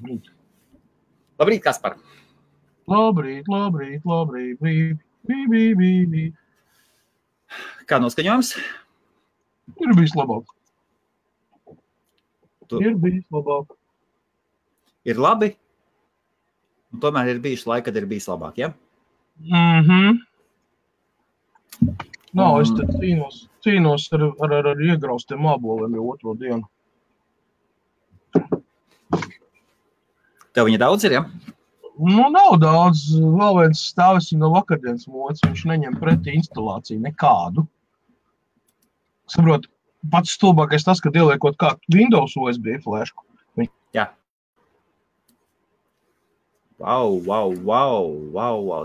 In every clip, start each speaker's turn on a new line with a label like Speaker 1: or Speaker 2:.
Speaker 1: Labrīt.
Speaker 2: Labrīt, Kaspar.
Speaker 1: Labrīt. Bī.
Speaker 2: Kā noskaņojums?
Speaker 1: Ir bijis labāk.
Speaker 2: Tu-
Speaker 1: Ir bijis labāk.
Speaker 2: Ir labi, un tomēr ir bijuši laiki, kad ir bijis labāk, ja?
Speaker 1: Nav, es te cīnos ar iegraustiem māboliem jau otro dienu.
Speaker 2: Tev viņa daudz ir, ja?
Speaker 1: Nu, nav daudz. Vēl viens stāvis no vakardienas mods. Viņš neņem pretī instalāciju nekādu. Saprot, pats stulbākais tas, kad ieliekot kā Windows USB flešku.
Speaker 2: Jā. Wow.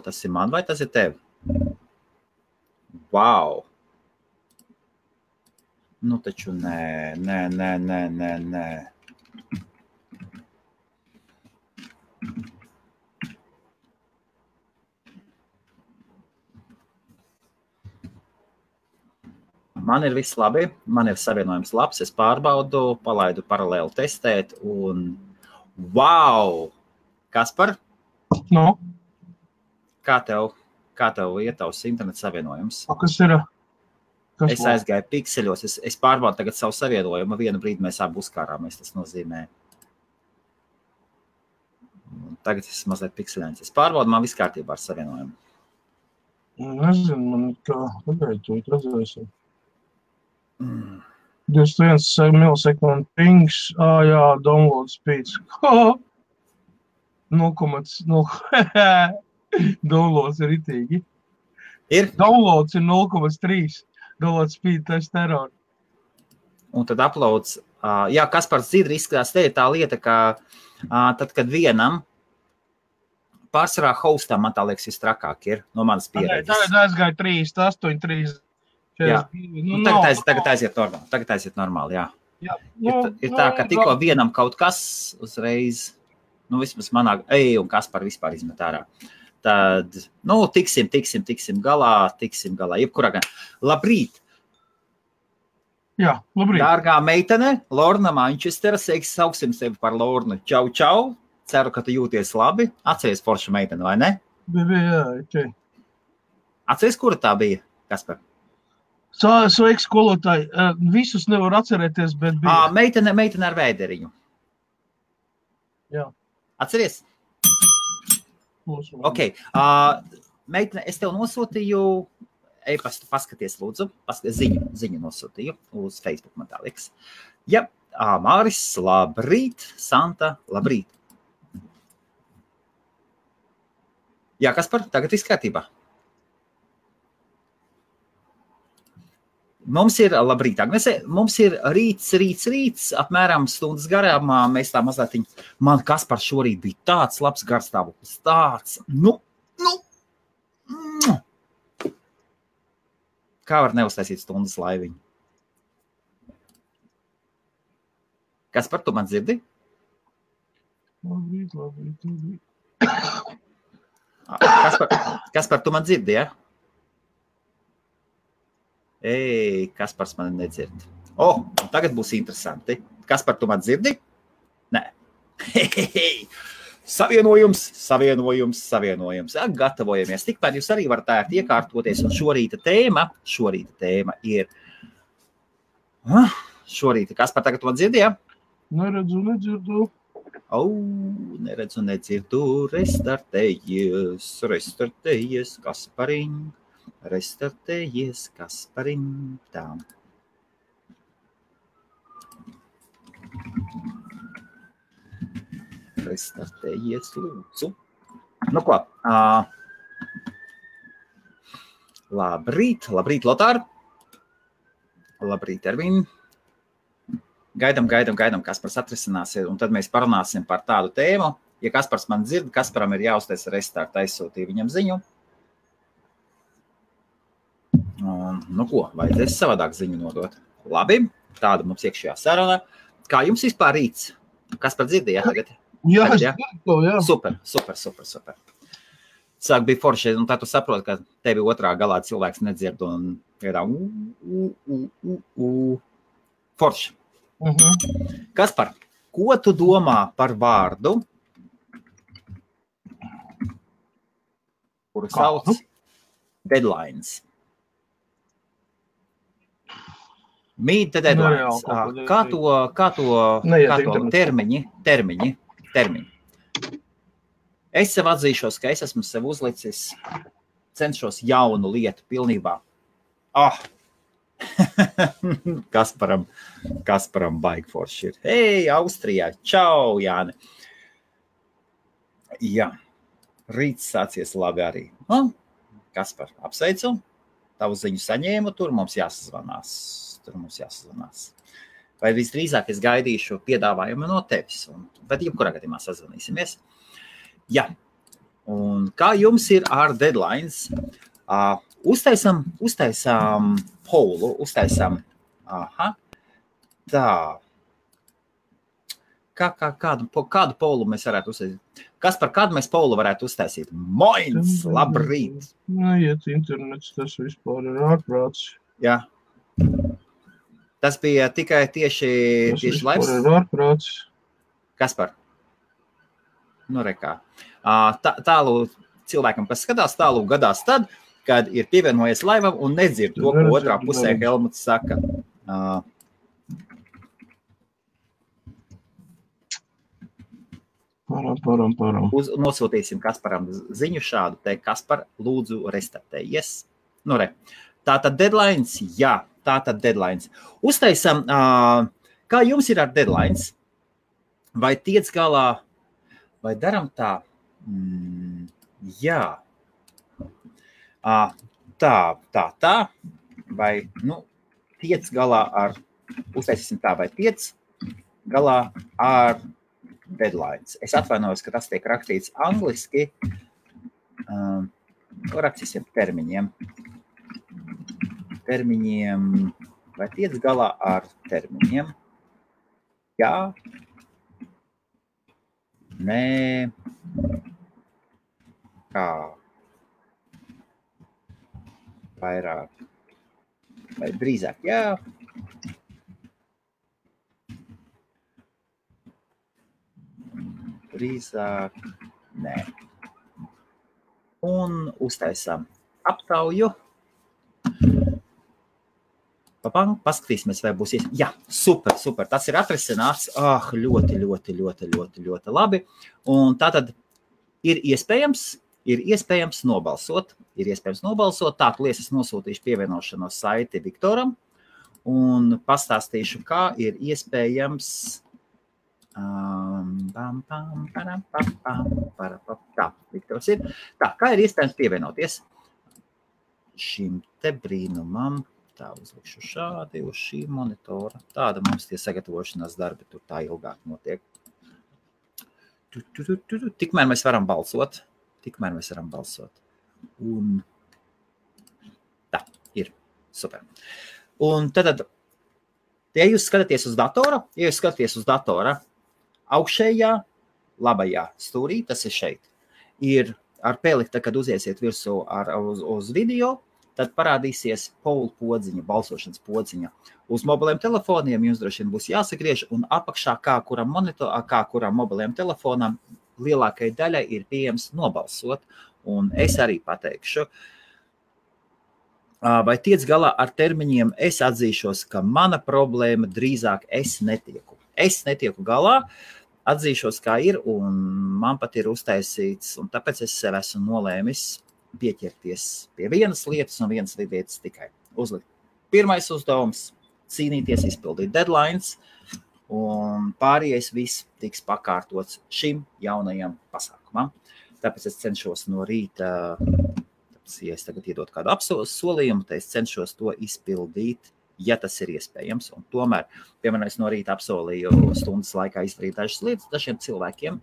Speaker 2: Tas ir man vai tas ir tev? Wow. Nu, taču nē. Man ir viss labi, man ir savienojums labs, es pārbaudu, palaidu paralēli testēt un wow! Kaspar,
Speaker 1: No,
Speaker 2: kā tev iet tavs interneta savienojums?
Speaker 1: kas ir? Kas
Speaker 2: Es aizgāju pikseļos, es pārbaudu tagad savu savienojumu, vienu brīdi mēs abi uzkārāmies, tas nozīmē. Tagad es mazliet pikseļains. Es pārbaudu, man viss kārtībā ar savienojumu.
Speaker 1: Nezinu, man kā, pagaid, tu redzēsim. 21 milisekund pings, jā, download speeds. 0,0. Downloads ir ritīgi.
Speaker 2: Ir?
Speaker 1: Downloads ir 0,3. Download speed, tas terror.
Speaker 2: Un tad uploads. Jā, Kaspars dzird izskatās, te ir tā lieta, ka tad, kad vienam pārsvarā hostam, man tā liekas, visstrakāk ir no manas pieredzes.
Speaker 1: Tagad aizgāja 3, 8, 3.
Speaker 2: Jā. Nu, tagad aiziet normāli, jā. Ir tā, ka tikko vienam kaut kas uzreiz, nu vismaz manā, un Kaspar vispār izmet ārā. Tad, nu, tiksim galā, jebkurā gan. Labrīt!
Speaker 1: Jā, labrīt.
Speaker 2: Dārgā meitene, Lorna Manchestera, sauksim sevi par Lornu. Čau! Ceru, ka tu jūties labi. Atceries forša meitene, vai ne?
Speaker 1: Jā, ok.
Speaker 2: Atceries, kura tā bija, Kaspar?
Speaker 1: Sveiks, skolotāji. Visus nevar atcerēties, bet bija.
Speaker 2: Meitene ar vēderiņu.
Speaker 1: Jā.
Speaker 2: Atceries? Ok. Meitene, es tev nosūtīju e-pastu, paskaties, lūdzu. Ziņu nosūtīju uz Facebook, man tā liekas. Jā, Māris, labrīt. Santa, labrīt. Jā, Kaspar, tagad viss kārtībā. Mums ir, labrīt, Agnese, mums ir rīts, apmēram stundas garām, mēs tā mazliet, man Kaspar šorīt bija tāds labs garstāvoklis, tāds, kā var neuztaisīt stundas laiviņu? Kaspar, tu man dzirdi?
Speaker 1: Labrīt.
Speaker 2: Kaspar, tu man dzirdi, ja? Kaspars man nedzird. Tagad būs interesanti. Kaspar, tu man dzirdi? Nē. Savienojums. Gatavojamies. Tikmēr jūs arī varat ērti iekārtoties. Un šorīta tēma ir... Kaspar, tagad tu man dzirdi, ja?
Speaker 1: Neredzu.
Speaker 2: Neredzu. Restartējies, Kaspariņ. Restartējies, Kaspariņ. Tā. Restartējies, lūdzu. Nu ko? Labrīt, Lotār. Labrīt, Ervin. Gaidam, Kaspars atrisināsies, un tad mēs parunāsim par tādu tēmu. Ja Kaspars man dzird, Kasparam ir jāuztais restart, aizsūtīja viņam ziņu. Nu ko, vajadzēs savādāk ziņu nodot. Labi, tāda mums iekšējā saruna. Kā jums vispār rīts? Kaspar dzirdēja tagad?
Speaker 1: Jā,
Speaker 2: jā. Super. Sāk bija forši, un tā tu saproti, ka tevi otrā galā cilvēks nedzird un ir forši. Kaspar, Ko tu domā par vārdu, kuru sauc deadlines? Meet the deadlines. Kā to termiņi? Es sev atzīšos, ka es esmu sev uzlicis, cenšos jaunu lietu pilnībā. Kasparam baigi forši ir. Hei, Austrijā, čau, Jāni. Jā, rīts sācies labi arī. Kaspar, apsveicu, tavu ziņu saņēmu, tur mums jāsazvanās. Vai visdrīzāk es gaidīšu piedāvājumu no tevis, bet jebkurā gadījumā sazvanīsimies. Jā, un kā jums ir ar deadlines? Uztaisam polu, tā. Kādu polu mēs varētu uztaisīt? Kas par kādu mēs polu varētu uztaisīt? Moins, labrīt!
Speaker 1: Iet internets, tas vispār ir ārprāts.
Speaker 2: Jā. Tas bija tikai tieši laivs?
Speaker 1: Tas vispār ir ārprāts.
Speaker 2: Kas par? Nu, rekā. Tālu cilvēkam, kas skatās, tālu gadās tad, kad ir pievienojies laivam un nedzird to, ko otrā pusē Helmuts saka.
Speaker 1: Param.
Speaker 2: Nosūtīsim Kasparam ziņu šādu, te Kaspar, lūdzu, restartējies. Nu, re. Tātad deadlines, jā, deadlines. Uztaisam, kā jums ir ar deadlines? Vai tiec galā, vai daram tā? Jā. Tā, vai, tiec galā ar, uztaisīsim tā, vai tiec galā ar deadlines. Es atvainojos, ka tas tiek rakstīts angliski. Rakstīsim termiņiem. Vai tiec galā ar termiņiem? Jā. Nē. Kā? Vairāk. Vai drīzāk? Jā. Drīzāk. Nē. Un uztaisām aptauju. Paskatīsimies, vai būs iespējams. Jā, super. Tas ir atrisināts. Ļoti labi. Un tātad ir iespējams nobalsot. Tā, liesas nosūtīšu pievienošanos saiti Viktoram un pastāstīšu, kā ir iespējams. Tā, Viktors ir. Tā, kā ir iespējams pievienoties šim te brīnumam. Tā, uzlikšu šādi uz šī monitora. Tāda mums tie sagatavošanās darbi tur tā ilgāk notiek. Tikmēr mēs varam balsot. Un tā, ir. Super. Un tad, ja jūs skatāties uz datora, augšējā, labajā stūrī, tas ir šeit, ir ar pēlikta, kad uziesiet virsū uz video, tad parādīsies poll podziņa, balsošanas podziņa. Uz mobiliem telefoniem jums droši vien būs jāsagriež, un apakšā, kā kuram mobiliem telefonam, lielākai daļai ir pieejams nobalsot. Un es arī pateikšu, vai tiec galā ar termiņiem, es atzīšos, ka mana problēma drīzāk es netieku galā, atzīšos, kā ir, un man pat ir uztaisīts, un tāpēc es sev esmu nolēmis pieķerties pie vienas lietas un vienas lietas tikai uzlikt. Pirmais uzdevums – cīnīties, izpildīt deadlines, un pārējais viss tiks pakārtots šim jaunajam pasākumam. Tāpēc es cenšos no rīta, ja es tagad iedot kādu solījumu, tad es cenšos to izpildīt, ja tas ir iespējams. Un tomēr, piemēram, es no rīta apsolīju stundas laikā izdarīt dažas lietas dažiem cilvēkiem,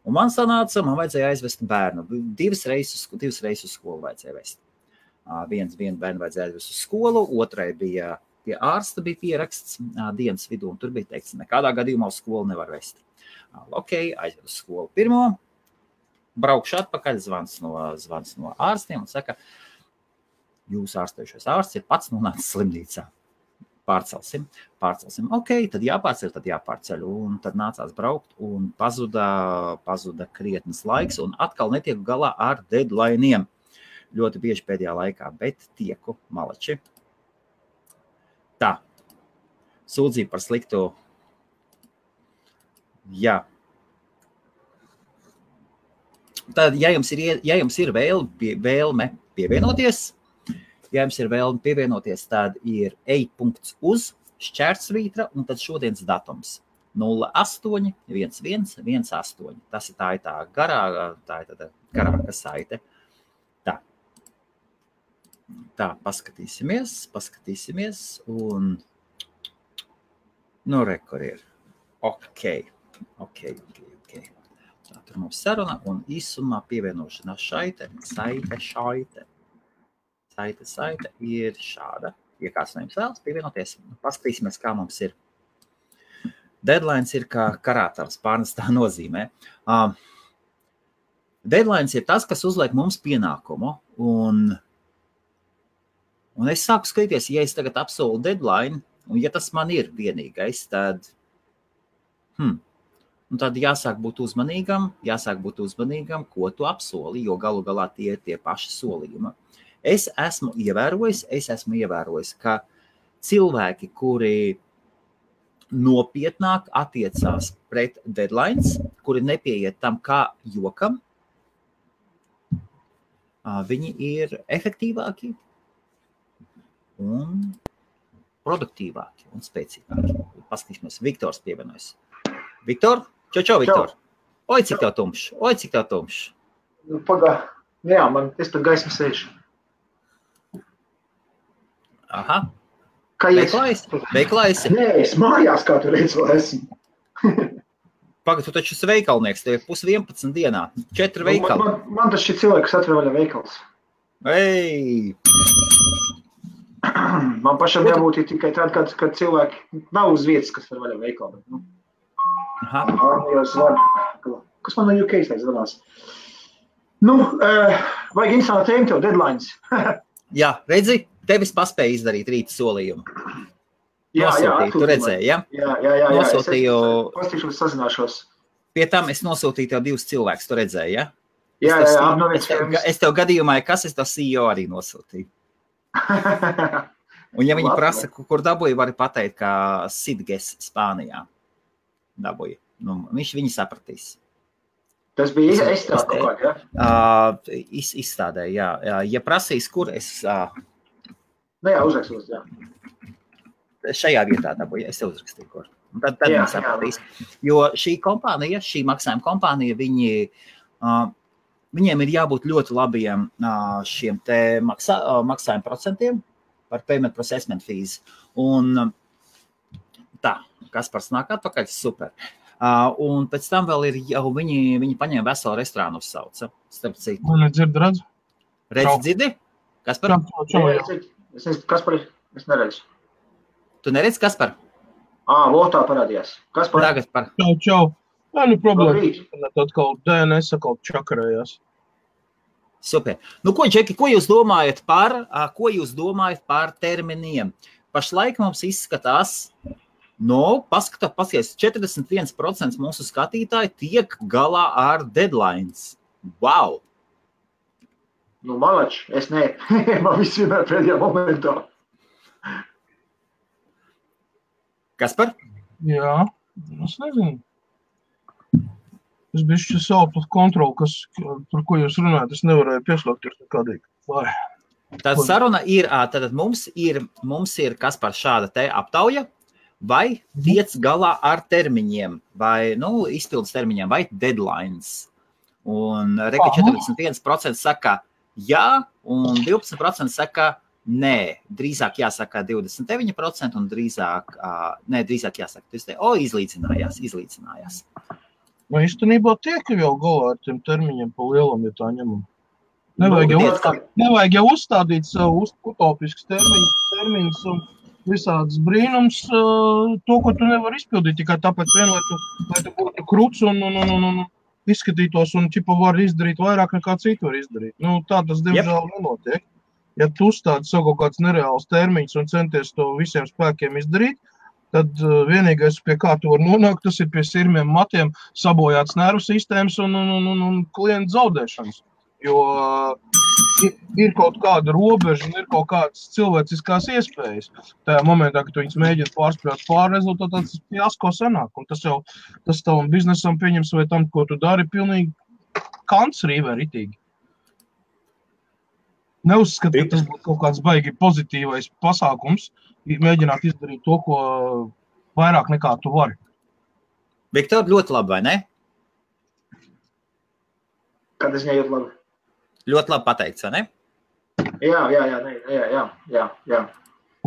Speaker 2: un man vajadzēja aizvest bērnu. Divas reizes uz skolu vajadzēja vest. Vienu bērnu vajadzēja aizvest uz skolu, otrai bija pie ārsta bija pieraksts dienas vidū, un tur bija teikts, nekādā gadījumā uz skolu nevar vest. Ok, aizved uz skolu pirmo, braukšu atpakaļ, zvans no ārstiem un saka, jūs ārstējušais ārsts ir pats nonācis slimnīcā. Pārcelsim. Ok, tad jāpārceļ. Un tad nācās braukt un pazuda krietnes laiks un atkal netieku galā ar deadlineiem. Ļoti bieži pēdējā laikā, bet tieku malači. Tā. Sūdzība par sliktu. Jā. Tad, ja jums ir vēlme pievienoties, tad ir ej.uz šķērsvītra un tad šodienas datums 081118. Tas ir tā garāka saite. Tā, paskatīsimies un kur ir. Ok. Tā, tur mums saruna un īsumā pievienošanās saite ir šāda. Ja kāds no jums vēlas pievienoties, paskatīsimies, kā mums ir. Deadlines ir kā karātavs, pārnestā nozīmē. Deadlines ir tas, kas uzliek mums pienākumu. Un es sāku skatīties, ja es tagad apsolu deadline, un ja tas man ir vienīgais, tad tad jāsāk būt uzmanīgam, ko tu apsoli, jo galu galā tie ir tie paši solījumi. Es esmu ievērojis, ka cilvēki, kuri nopietnāk attiecās pret deadlines, kuri nepieiet tam kā jokam, viņi ir efektīvāki un produktīvāki un spēcīgāki. Paskatīsimies, Viktors pievienojas. Viktor? Čau, Viktor. Oi, cik tev tumšs.
Speaker 3: Pagā. Jā, es pat gaismu sēžu.
Speaker 2: Aha.
Speaker 3: Kā
Speaker 2: Veiklā esi?
Speaker 3: Nē, es mājās, kā tu redzi, vēl esmu.
Speaker 2: Pagad, tu taču esi veikalnieks, tev ir 10:11 dienā. 4 veikali.
Speaker 3: Man tas šī cilvēks atver vaļā veikals.
Speaker 2: Ei!
Speaker 3: Man pašam jābūt tikai tad, kad cilvēki nav uz vietas, kas var vaļā veikalu.
Speaker 2: Aha.
Speaker 3: Kas man no UK zvanās? Vajag interesantu tēmu tev, deadlines.
Speaker 2: Jā, redzi, tevis paspēja izdarīt rīta solījumu. Nosūtīju, tu redzēji, ja?
Speaker 3: Jā.
Speaker 2: Nosūtīju.
Speaker 3: Pastīšos, sazināšos.
Speaker 2: Pie tam es nosūtīju tev 2 cilvēkus, tu redzēji, ja?
Speaker 3: Jā.
Speaker 2: Es tev gadījumā, kas es tev CEO arī nosūtīju. Un ja viņi prasa, kur dabūja, vari pateikt, kā Sidges Spānijā dabūja. Viņi sapratīs.
Speaker 3: Tas bija izstrāde kaut kā, ja?
Speaker 2: Izstādē, jā. Ja prasīs, kur es...
Speaker 3: Jā, uzrakstos, jā.
Speaker 2: Šajā vietā dabūja, es tev uzrakstīju, kur. Un tad viņi sapratīs. Jo šī maksājuma kompānija, viņiem ir jābūt ļoti labiem šiem te maksājuma procentiem par payment processment fees. Un tā, Kaspars nāk atpakaļ, super. Un pēc tam vēl ir jau viņi paņēma veselu restorānu uzsauca. Starp citu.
Speaker 1: Man nedzird, redz?
Speaker 2: Dzirdi? Kaspar?
Speaker 3: Čau. Kaspar, es neredzu.
Speaker 2: Tu neredzi, Kaspar?
Speaker 3: Votā parādījās. Kaspar?
Speaker 2: Tagad par.
Speaker 1: Čau. Problēma. Atkal DNS atkal čakarējās.
Speaker 2: Super. Ko, Džeki, ko jūs domājat par terminiem? Pašlaik mums izskatās, paskaties, 41% mūsu skatītāji tiek galā ar deadlines. Wow!
Speaker 3: Malač, es ne. Man viss vienmēr pēdējā momentā.
Speaker 2: Kaspar?
Speaker 1: Jā, es nezinu. Es bišķi savu kontroli, par ko jūs runājat, es nevarēju pieslēgties nekādīgi.
Speaker 2: Tad saruna ir, tad mums ir Kaspar šāda te aptauja, vai tiec galā ar termiņiem, vai, izpildes termiņiem, vai deadlines. Un reka 41% saka jā, un 12% saka nē. Drīzāk jāsaka 29% un drīzāk jāsaka, izlīdzinājās.
Speaker 1: Vai īstenībā tiek jau galā ar tiem termiņiem pa lielam, ja tā ņemam? Nevajag jau uzstādīt savu utopiskus termiņus un visādas brīnums, to, ko tu nevar izpildīt, tikai tāpēc lai tu būtu kruts un izskatītos un var izdarīt vairāk nekā citu var izdarīt. Tā tas diemžēl nenotiek. Ja tu uzstādi savu kaut kāds nereāls termiņš un centies to visiem spēkiem izdarīt, tad vienīgais, pie kā tu var nonākt, tas ir pie sirmiem matiem, sabojāts nervu sistēmas un klientu zaudēšanas. Jo ir kaut kāda robeža un ir kaut kādas cilvēciskās iespējas. Tajā momentā, kad tu viņus mēģini pārspēt pāri rezultātā, tas fiasko sanāk. Un tas tavam biznesam pieņems vai tam, ko tu dari, pilnīgi kants rīvē ritīgi. Neuzskat, ka tas būtu kaut kāds baigi pozitīvais pasākums, mēģināt izdarīt to, ko vairāk nekā tu vari.
Speaker 2: Viktor, ļoti labi, vai ne?
Speaker 3: Kad es nejūt labi?
Speaker 2: Ļoti labi pateikts, vai ne?
Speaker 3: Jā.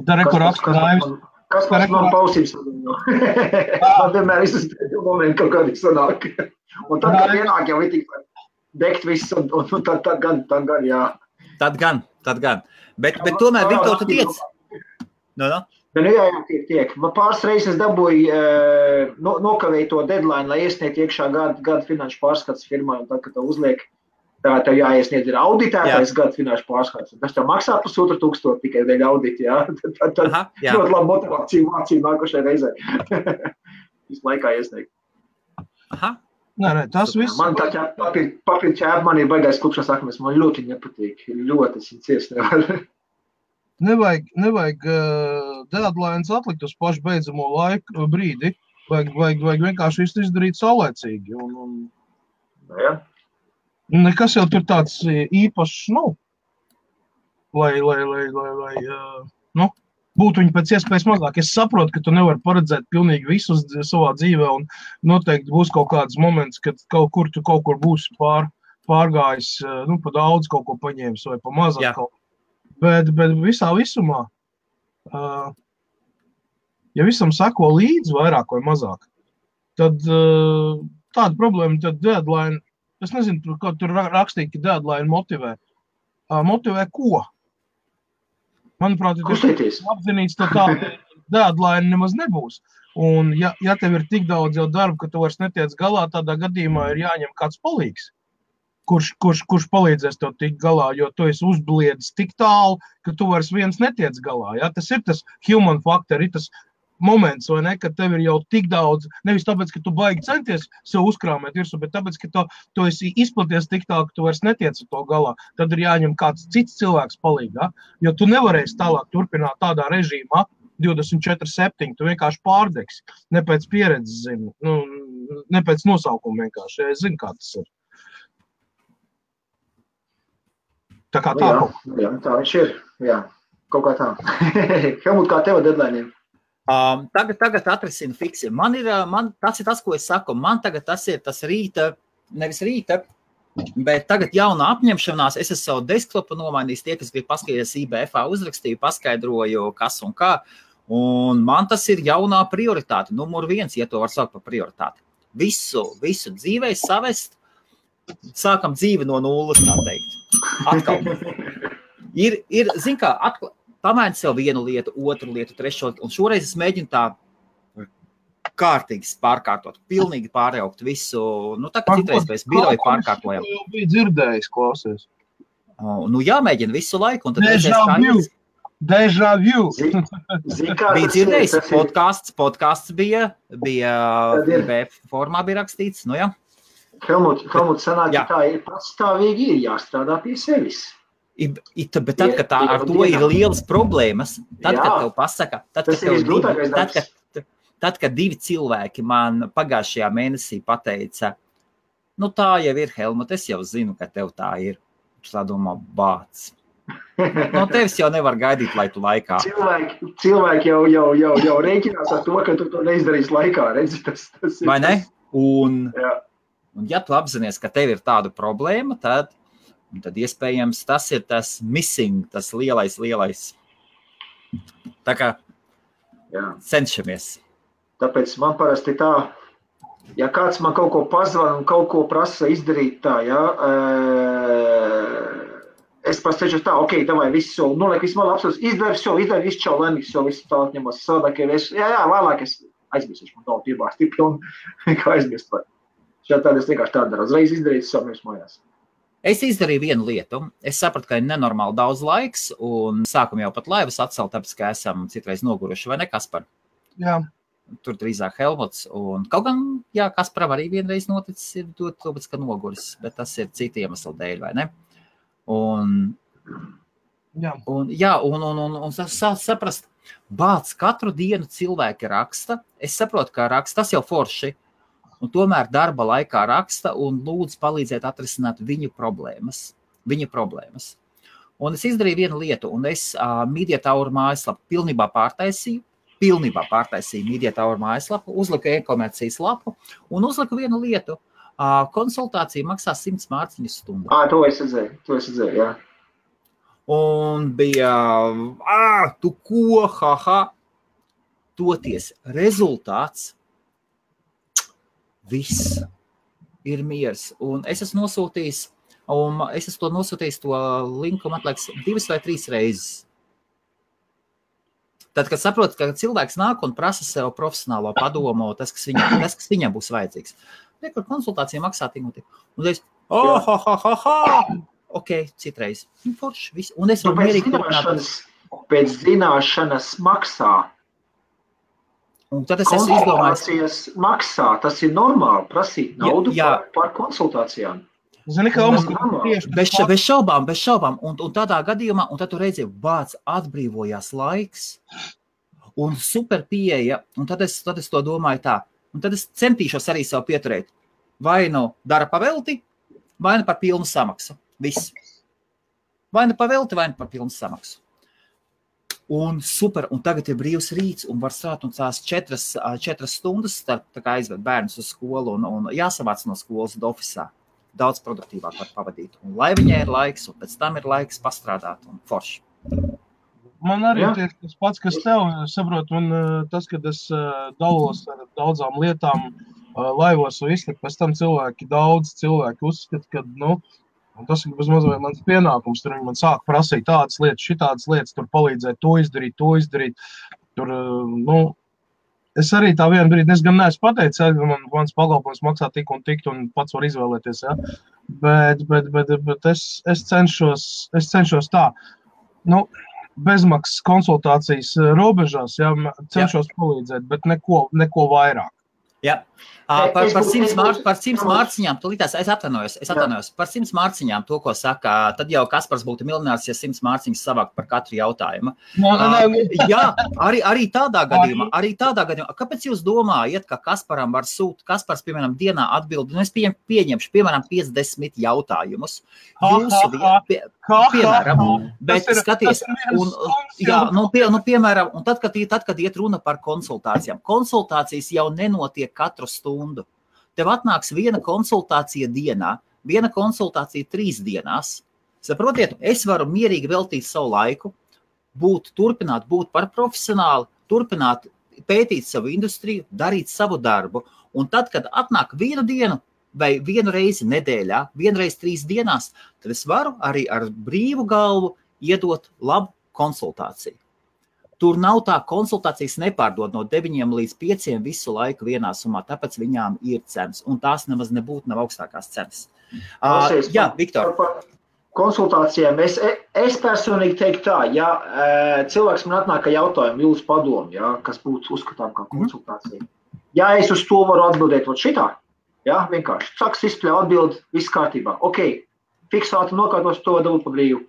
Speaker 1: Tā reko raksta Raivis.
Speaker 3: Kas man pausības? Man vienmēr visas momenti kaut kādi sanāk. Un tad, kad ienāk jau ir tik degt viss, un tad gan, jā.
Speaker 2: Tad gan. Bet tomēr, Viktor, tu tiec? No.
Speaker 3: Jā, tiek. Man pāris reizes dabūju nokavēju to deadline, lai iesniegt iekšā gada finanšu pārskats firmai, un tad, kad tev uzliek, tev jāiesniedz ir auditētais gada finanšu pārskats. Tas tev maksā 1,500 tikai dēļ audita, jā. Tad ļoti labi motivāciju mācību nākošai reizē. Visu laikā iesniegt.
Speaker 2: Aha.
Speaker 1: Nē, tas viss.
Speaker 3: Man tā papīra ķēpa, man ir baigais klupšanas akmes, man ļoti nepatīk. Ļoti es ciest nevaru.
Speaker 1: Nevajag deadlines atlikt uz pašu beidzamo laiku brīdi. Vajag vienkārši visu izdarīt saulēcīgi.
Speaker 3: Jā.
Speaker 1: Nekas jau tur tāds īpašs, lai būtu viņi pēc iespējas mazāk. Es saprotu, ka tu nevari paredzēt pilnīgi visu savā dzīvē, un noteikti būs kaut kāds moments, kad kaut kur būs pārgājis, pa daudz kaut ko paņēmis vai pa mazāk kaut ko. Bet visā visumā, ja visam sako līdzi vairāk vai mazāk, tad tāda problēma, tad deadline, es nezinu, ko tur rakstīt, ka deadline motivē. Motivē ko? Manuprāt, ja tas apzinīts, tad tā deadline nemaz nebūs. Un ja tev ir tik daudz jau darba, ka tu vairs netiec galā, tādā gadījumā ir jāņem kāds palīgs, kurš palīdzēs tev tikt galā, jo tu esi uzbliedis tik tālu, ka tu vairs viens netiec galā. Ja? Tas ir tas human factor, ir tas moments, vai ne, ka tev ir jau tik daudz, nevis tāpēc, ka tu baigi centies sev uzkrāmēt virsū, bet tāpēc, ka tu esi izplaties tik tālu, ka tu vairs netiec ar to galā, tad ir jāņem kāds cits cilvēks palīgā, jo tu nevarēsi tālāk turpināt tādā režīmā 24/7, tu vienkārši pārdegsi, ne pēc pieredzes zini, ne pēc nosaukuma vienkārši, es zinu, kā tas ir. Tā kā tā kaut.
Speaker 3: Jā, tā viņš ir, jā, kaut kā tā. Helmut, kā tev deadlineiem?
Speaker 2: Tagad atrisinu fiksi. Tas ir tas, ko es saku. Man tagad tas ir tas nevis rīta, bet tagad jauna apņemšanās. Es savu desktopu nomainījis, tie, kas grib paskatīties IBF-ā uzrakstīju, paskaidroju, kas un kā. Un man tas ir jaunā prioritāte, numur 1, ja to var saukt par prioritāti. Visu dzīvē savest, sākam dzīvi no nulles, tā teikt. Atkal. Ir zin kā, pamaini sev vienu lietu, otru lietu, trešo, un šoreiz es mēģinu tā kārtīgi pārkārtot, pilnīgi pārjaukt visu, tā kā citreiz pēc biroja pārkārtojam.
Speaker 1: Jau bija dzirdējis, klausies.
Speaker 2: Jāmēģina visu laiku, un tad
Speaker 1: Deja vu.
Speaker 2: Bija dzirdējis, podcasts bija IBF formā bija rakstīts, jā.
Speaker 3: Helmut, sanāk, ka tā ir patstāvīgi ir jāstrādā pie sevis.
Speaker 2: Bet tad, kad ar to ir lielas problēmas, tad, kad tev pasaka, tad, kad 2 cilvēki man pagājušajā mēnesī pateica, tā jau ir, Helmut, es jau zinu, ka tev tā ir. Es tā domā, bāc. No tevis jau nevar gaidīt, lai tu laikā.
Speaker 3: Cilvēki jau rēķinās ar to, ka tu to neizdarīsi laikā, redzi, tas ir.
Speaker 2: Vai ne? Un ja tu apzinies, ka tev ir tāda problēma, tad iespējams tas ir tas missing, tas lielais. Tā kā cenšamies.
Speaker 3: Tāpēc man parasti tā, ja kāds man kaut ko pazvan un kaut ko prasa izdarīt tā, es pastāšu tā, davai, visu soli, noliek visu malā apsūs, izdari visu čau, laimīgs, visu tālāk ņemos, savādāk, vēlāk es aizmirsuši, man tālu piebāsti, un kā aizmirst var. Tāda es vienkārši tādu daru, uzreiz izdarīt savu mājās.
Speaker 2: Es izdarīju vienu lietu. Es sapratu, ka ir nenormāli daudz laiks, un sākam jau pat laivas atcelt, tāpēc, ka esam citreiz noguruši, vai ne, Kaspar?
Speaker 1: Jā.
Speaker 2: Tur drīzāk Helmuts, un kaut gan, jā, Kasparam arī vienreiz noticis ir dot, tāpēc, ka noguris, bet tas ir citi iemesli dēļ, vai ne? Un saprast, bāc, katru dienu cilvēki raksta, es saprotu, ka raksta, tas jau forši, un tomēr darba laikā raksta un lūdzu palīdzēt atrisināt viņu problēmas. Un es izdarīju vienu lietu, un es Media Tower mājaslapu pilnībā pārtaisīju Media Tower mājaslapu, uzliku e-komercijas lapu un uzliku vienu lietu. Konsultācija maksā 100 mārciņas stundu.
Speaker 3: To es redzēju, jā.
Speaker 2: Un bija, tu ko, toties rezultāts, viss ir miers. Un es esmu nosūtījis to linku, man liekas, 2 vai 3 reizes. Tad, kad saprotu, ka cilvēks nāk un prasa sev profesionālo padomu, tas, kas viņam būs vajadzīgs. Kur konsultācija maksā tik un tik. Un es, ok, citreiz. Forši, viss. Un es varu mierīgi turpināt.
Speaker 3: Pēc zināšanas maksā.
Speaker 2: Un tad es esmu izdomājis.
Speaker 3: Konsultācijas maksā, tas ir normāli prasīt naudu par konsultācijām.
Speaker 1: Zini, ka
Speaker 2: bez šaubām. Un tādā gadījumā, un tad tu redzi, bāc, atbrīvojās laiks un super pieeja. Un tad es to domāju tā. Un tad es centīšos arī sev pieturēt. Vai nu dara pavelti, vai nu par pilnu samaksu. Viss. Vai nu pavelti, vai nu par pilnu samaksu. Un super, un tagad ir brīvs rīts, un var strādāt un tās 4 stundas, tā kā aizved bērnus uz skolu un jāsavāc no skolas ofisā. Daudz produktīvāk var pavadīt. Un lai viņai ir laiks, un pēc tam ir laiks pastrādāt un forši.
Speaker 1: Man arī tieši tas pats, kas tev, saprot, un tas, kad es dalos ar daudzām lietām laivos un visu, pēc tam daudz cilvēki uzskata, ka, un tas ir bezmazliet mans pienākums, tur viņi man sāk prasīt tādas lietas, šitādas lietas, tur palīdzēt to izdarīt, tur, es arī tā vienu brīdi, es gan neesmu pateicis, ka mans pakalpojums maksā tik un pats var izvēlēties, ja? Bet es cenšos tā, bezmaksas konsultācijas robežās, ja, cenšos palīdzēt, bet neko vairāk.
Speaker 2: Jā. Par 100 mārciņām, es atvainojos, par 100 mārciņām to, ko saka, tad jau Kaspars būtu miljonārs, ja 100 mārciņas savākt par katru jautājumu. Jā, arī tādā gadījumā, kāpēc jūs domājat, ka Kasparam var Kaspars, piemēram, dienā atbild, un es pieņemšu, piemēram, 50 jautājumus. Piemēram, bet skaties, piemēram, un tad, kad iet runa par konsultācijām, konsultācijas jau nenotiek katru stundu. Tev atnāks viena konsultācija dienā, viena konsultācija 3 dienās. Saprotiet, es varu mierīgi veltīt savu laiku, turpināt būt par profesionāli, turpināt pētīt savu industriju, darīt savu darbu. Un tad, kad atnāk vienu dienu vai vienu reizi nedēļā, vienreiz 3 dienās, tad es varu arī ar brīvu galvu iedot labu konsultāciju. Tur nav tā, konsultācijas nepārdod no 9 līdz 5 visu laiku vienā summā, tāpēc viņām ir cenas, un tās nemaz nebūtu nav augstākās cenas. Jā, Viktor.
Speaker 3: Par konsultācijām es personīgi teiktu tā, ja cilvēks man atnāk ar jautājumu, jūsu padomu, ja, kas būtu uzskatām kā konsultācija. Ja es uz to varu atbildēt šitā, ja, vienkārši saks izspļauj atbild, viss kārtībā. Ok, fiksāti nokārtos to dabūt pa brīvu.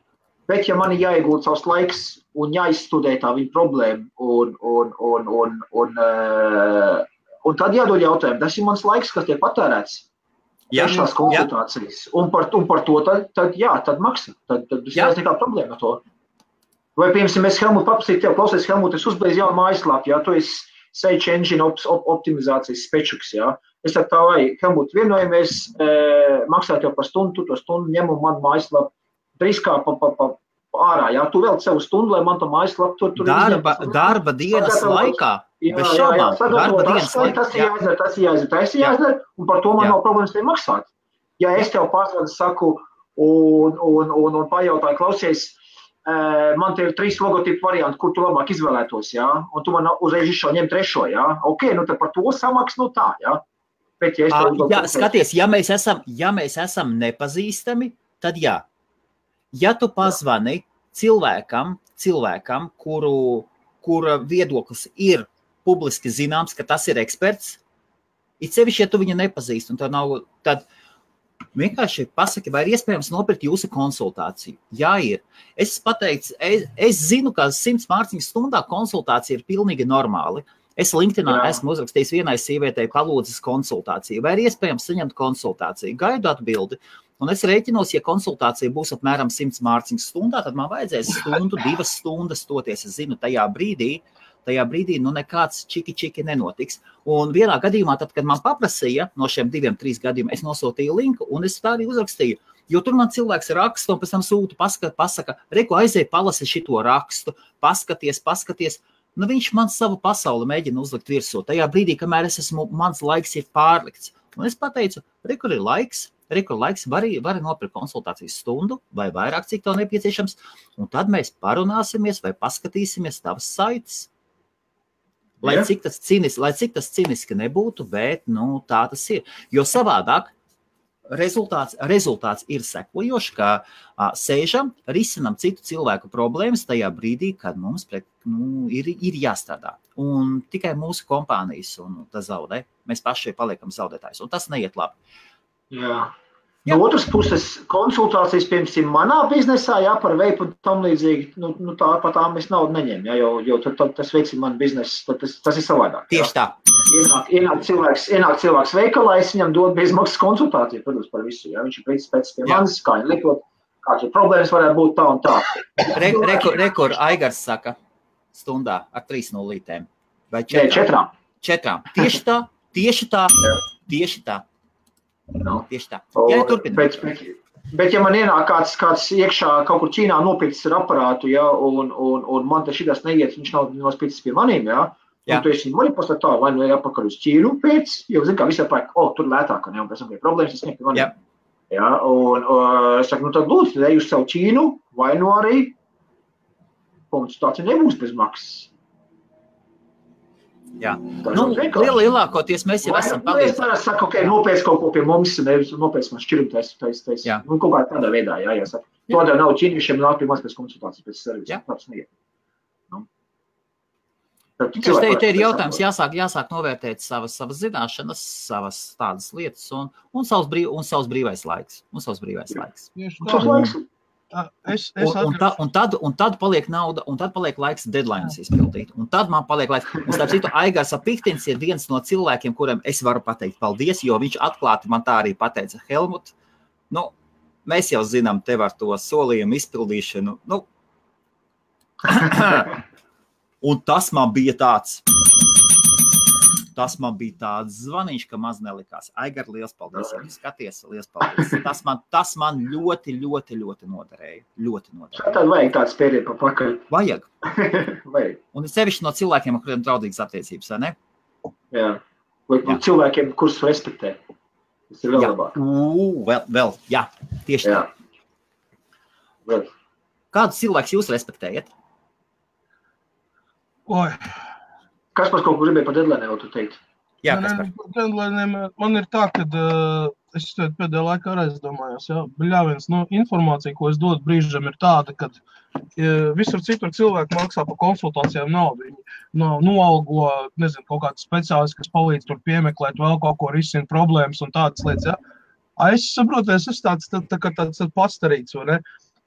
Speaker 3: Bet, ja man ir jāiegūt savs laiks un jāizstudē tā viņa problēma un tad jādod jautājumu, tas ir mans laiks, kas tiek patērēts. Tiešās konsultācijas. Un par to tad maksā. Tad nekā problēma ar to. Vai, piemēram, es Helmut paprasīju tev, klausies, Helmut, es uzbeidzu jaunu mājaslapu, ja tu esi Search Engine optimizācijas spečuks, ja. Es ar tā vai, Helmut, vienojamies, maksā tev par stundu, tu to stundu ņem un man mājaslapu. Driskā ārā, jā, tu vēl savu stundu, lai man to mājaslapu tur
Speaker 2: darba dienas laikā, bez šaubām, darba dienas laikā.
Speaker 3: Tas ir jāizdara, un par to man nav problēmas te maksāt. Ja es tev pārsvadu saku un pajautāju, klausies, man te ir 3 logotipu varianti, kur tu labāk izvēlētos, jā, un tu man uzreiz izšau ņem 3, jā, ok, tad par to samaks, tā, jā. Bet, ja
Speaker 2: skaties, ja mēs esam nepazīstami, tad jā. Ja tu pazvani cilvēkam, kura viedoklis ir publiski zināms, ka tas ir eksperts, it sevišķi, ja tu viņu nepazīst, un tad vienkārši pasaki, vai ir iespējams nopirkt jūsu konsultāciju. Jā, ir. Es pateicu, es zinu, ka 100 mārciņas stundā konsultācija ir pilnīgi normāli. Es LinkedInā esmu uzrakstījis vienai sievietei palūdzis konsultāciju. Vai ir iespējams saņemt konsultāciju? Gaidu atbildi. Un es rēķinos, ja konsultācija būs apmēram 100 mārciņas stundā, tad man vajadzēs 2 stundas stoties. Es zinu, tajā brīdī nekāds čiki nenotiks. Un vienā gadījumā, tad, kad man paprasīja no šiem 2-3 gadījumiem, es nosūtīju linku un es tā arī uzrakstīju. Jo tur man cilvēks raksta un pēc tam sūta, pasaka, reku aizēj palasi šito rakstu, paskaties. Nu, viņš man savu pasauli mēģina uzlikt virsū. Tajā brīdī, kamēr mans laiks ir pārlikts. Un es pateicu, rekur ir laiks, vari nopirkt konsultācijas stundu vai vairāk, cik tev nepieciešams. Un tad mēs parunāsimies vai paskatīsimies tavas saites. Lai cik tas ciniski nebūtu, bet, tā tas ir. Jo savādāk rezultāts ir sekojošs, ka sēžam, risinam citu cilvēku problēmas tajā brīdī, kad mums ir jāstrādā. Un tikai mūsu kompānijas un tas zaudē. Mēs paši paliekam zaudētājs. Un tas neiet labi.
Speaker 3: Jā. No otras puses, konsultācijas, piemēram, manā biznesā, par veipu tam līdzīgi, par tām es naudu neņemu, jo tad tas veicina man biznesu, tas ir savādāk.
Speaker 2: Tieši tā.
Speaker 3: Ienāk cilvēks veikalā, es viņam dodu bezmaksas konsultāciju, protams, par visu, viņš ir pēc pie manis, kā viņi likot, kāds problēmas varētu būt tā un tā.
Speaker 2: Rekur Aigars saka stundā ar 3 nulītēm. Vai 4? 4. Tieši tā. Tieši tā. Jā,
Speaker 3: bet ja man ienāk kāds iekšā kaut kur Ķīnā nopircis ar aparātu, un man te šitas neiet, viņš nav nospīcis pie manīm, un tu esi manipulēs tā, vai nu ir apakaļ uz Ķīnu pēc, jo zin kā visā pāk, tur lētāk, un pēc tam ir problēmas, es sniegt pie manīm. Jā, un es saku, tad lūdzu, ej uz savu Ķīnu, vai nu arī konsultācija nebūs bez maksas.
Speaker 2: Jā, lielākoties mēs jau esam palīdzējuši.
Speaker 3: Es parasti saku, nopēc kaut ko pie mums, nevis nopēc man šķirumu taisa. Kaut kā tādā veidā, jāsaka. Tādēļ nav ķīniešiem nāk pie maz pēc konsultācijas, pēc servisa. Tāds neiet.
Speaker 2: Te ir jautājums, jāsāk novērtēt savas zināšanas, savas tādas lietas un savs brīvais laiks. Un tad paliek nauda, un tad paliek laiks deadlines izpildīt. Un tad man paliek laiks. Un starp citu, Aigars Piktins ir viens no cilvēkiem, kuriem es varu pateikt paldies, jo viņš atklāti man tā arī pateica, Helmut, mēs jau zinām tev ar to solījumu izpildīšanu. Un tas man bija tāds zvaniņš, ka maz nelikās. Aigar, liels paldies, ja skaties, liels paldies. Tas man ļoti noderēja.
Speaker 3: Tad vajag tāds pēdējā pa pakaļ.
Speaker 2: Vajag. Un sevišķi no cilvēkiem, ar kuriem draudīgas attiecības, vai ne?
Speaker 3: Jā. Vai cilvēkiem, kurus respektē. Tas ir vēl labāk.
Speaker 2: Vēl, jā, tieši tā. Kādus cilvēkus jūs respektējat?
Speaker 1: Oi.
Speaker 3: Kaspars kaut ko gribēja par deadline'iem vēl tu teikt?
Speaker 2: Jā, Kaspar.
Speaker 1: Par deadline'iem man ir tā, ka es pēdējā laikā arī domājos, bļāviens, informācija, ko es dodu brīžam, ir tāda, ka visur citur cilvēki maksā par konsultācijām naudu. Viņi noalgo, nezinu, kaut kāds speciālists, kas palīdz tur piemeklēt vēl kaut ko, risina problēmas un tādas lietas, Es saprotu, es esmu tāds pastarīts, vai ne?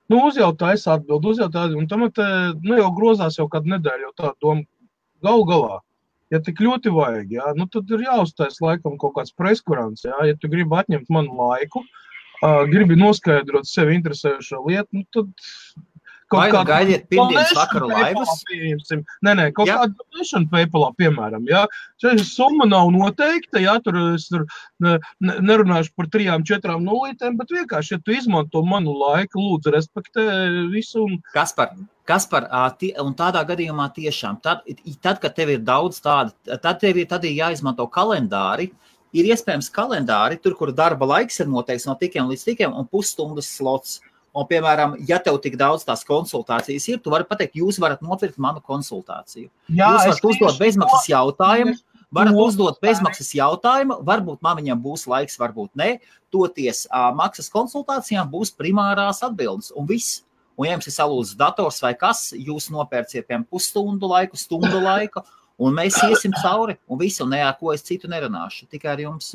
Speaker 1: Uzjautā, es atbildu, un tam jau grozās jau kādu nedēļu, jau tā doma. Galā, ja tik ļoti vajag, tad ir jāuztais laikam kaut kāds preskurants, ja tu gribi atņemt manu laiku, gribi noskaidrot sevi interesējušo lietu, tad kaut kādu
Speaker 2: gaidiet pirmdienas vakaru laivas?
Speaker 1: Nē, kaut kādu donation PayPalā, piemēram, summa nav noteikta, tur es nerunāšu par 3-4 nulītēm, bet vienkārši, ja tu izmanto manu laiku, lūdzu, respektē visu.
Speaker 2: Kaspar, un tādā gadījumā tiešām, tad, kad tev ir daudz tāda, tad ir jāizmanto kalendāri, ir iespējams kalendāri, tur, kur darba laiks ir noteikts no tikiem līdz tikiem un pusstundas slots. Un, piemēram, ja tev tik daudz tās konsultācijas ir, tu vari pateikt, jūs varat nopirkt manu konsultāciju. Jūs varat uzdot bezmaksas jautājumu, Varat uzdot bezmaksas jautājumu, varbūt man viņam būs laiks, varbūt ne. Toties maksas konsultācijām būs primārās atbildes un viss. Un ja jums ir salūzis dators vai kas, jūs nopērciet piemēram pusstundu laiku, stundu laiku, un mēs iesim cauri, un visu, un ar ko es citu nerunāšu, tikai ar jums.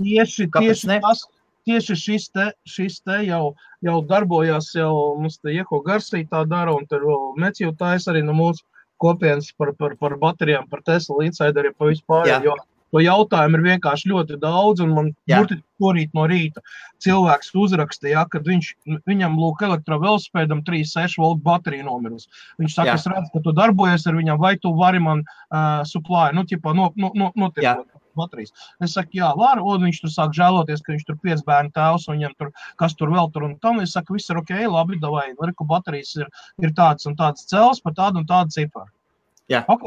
Speaker 1: Tieši šis te jau darbojās, jau mums te Ieko Garsī tā dara, un tur Meciju tais arī no mūsu kopienas par baterijām, par Tesla insideriem, pa vispār, jo to jautājumu ir vienkārši ļoti daudz, un man burtiski porīt no rīta cilvēks uzrakstīja, kad viņam lūk elektrovelosipēdam 3,6 volt baterija nomirus. Viņš saka, es redzu, ka tu darbojies ar viņam, vai tu vari man supply, notiekot baterijas. Es saku, jā, var, un viņš tur sāk žēloties, ka viņš tur 5 bērnu tēvs, un viņam tur, kas tur vēl tur, un tam, es saku, viss ir ok, labi, davai, reku baterijas ir tāds un tāds cels par tādu un tādu ciparu.
Speaker 2: Jā.
Speaker 1: Ok,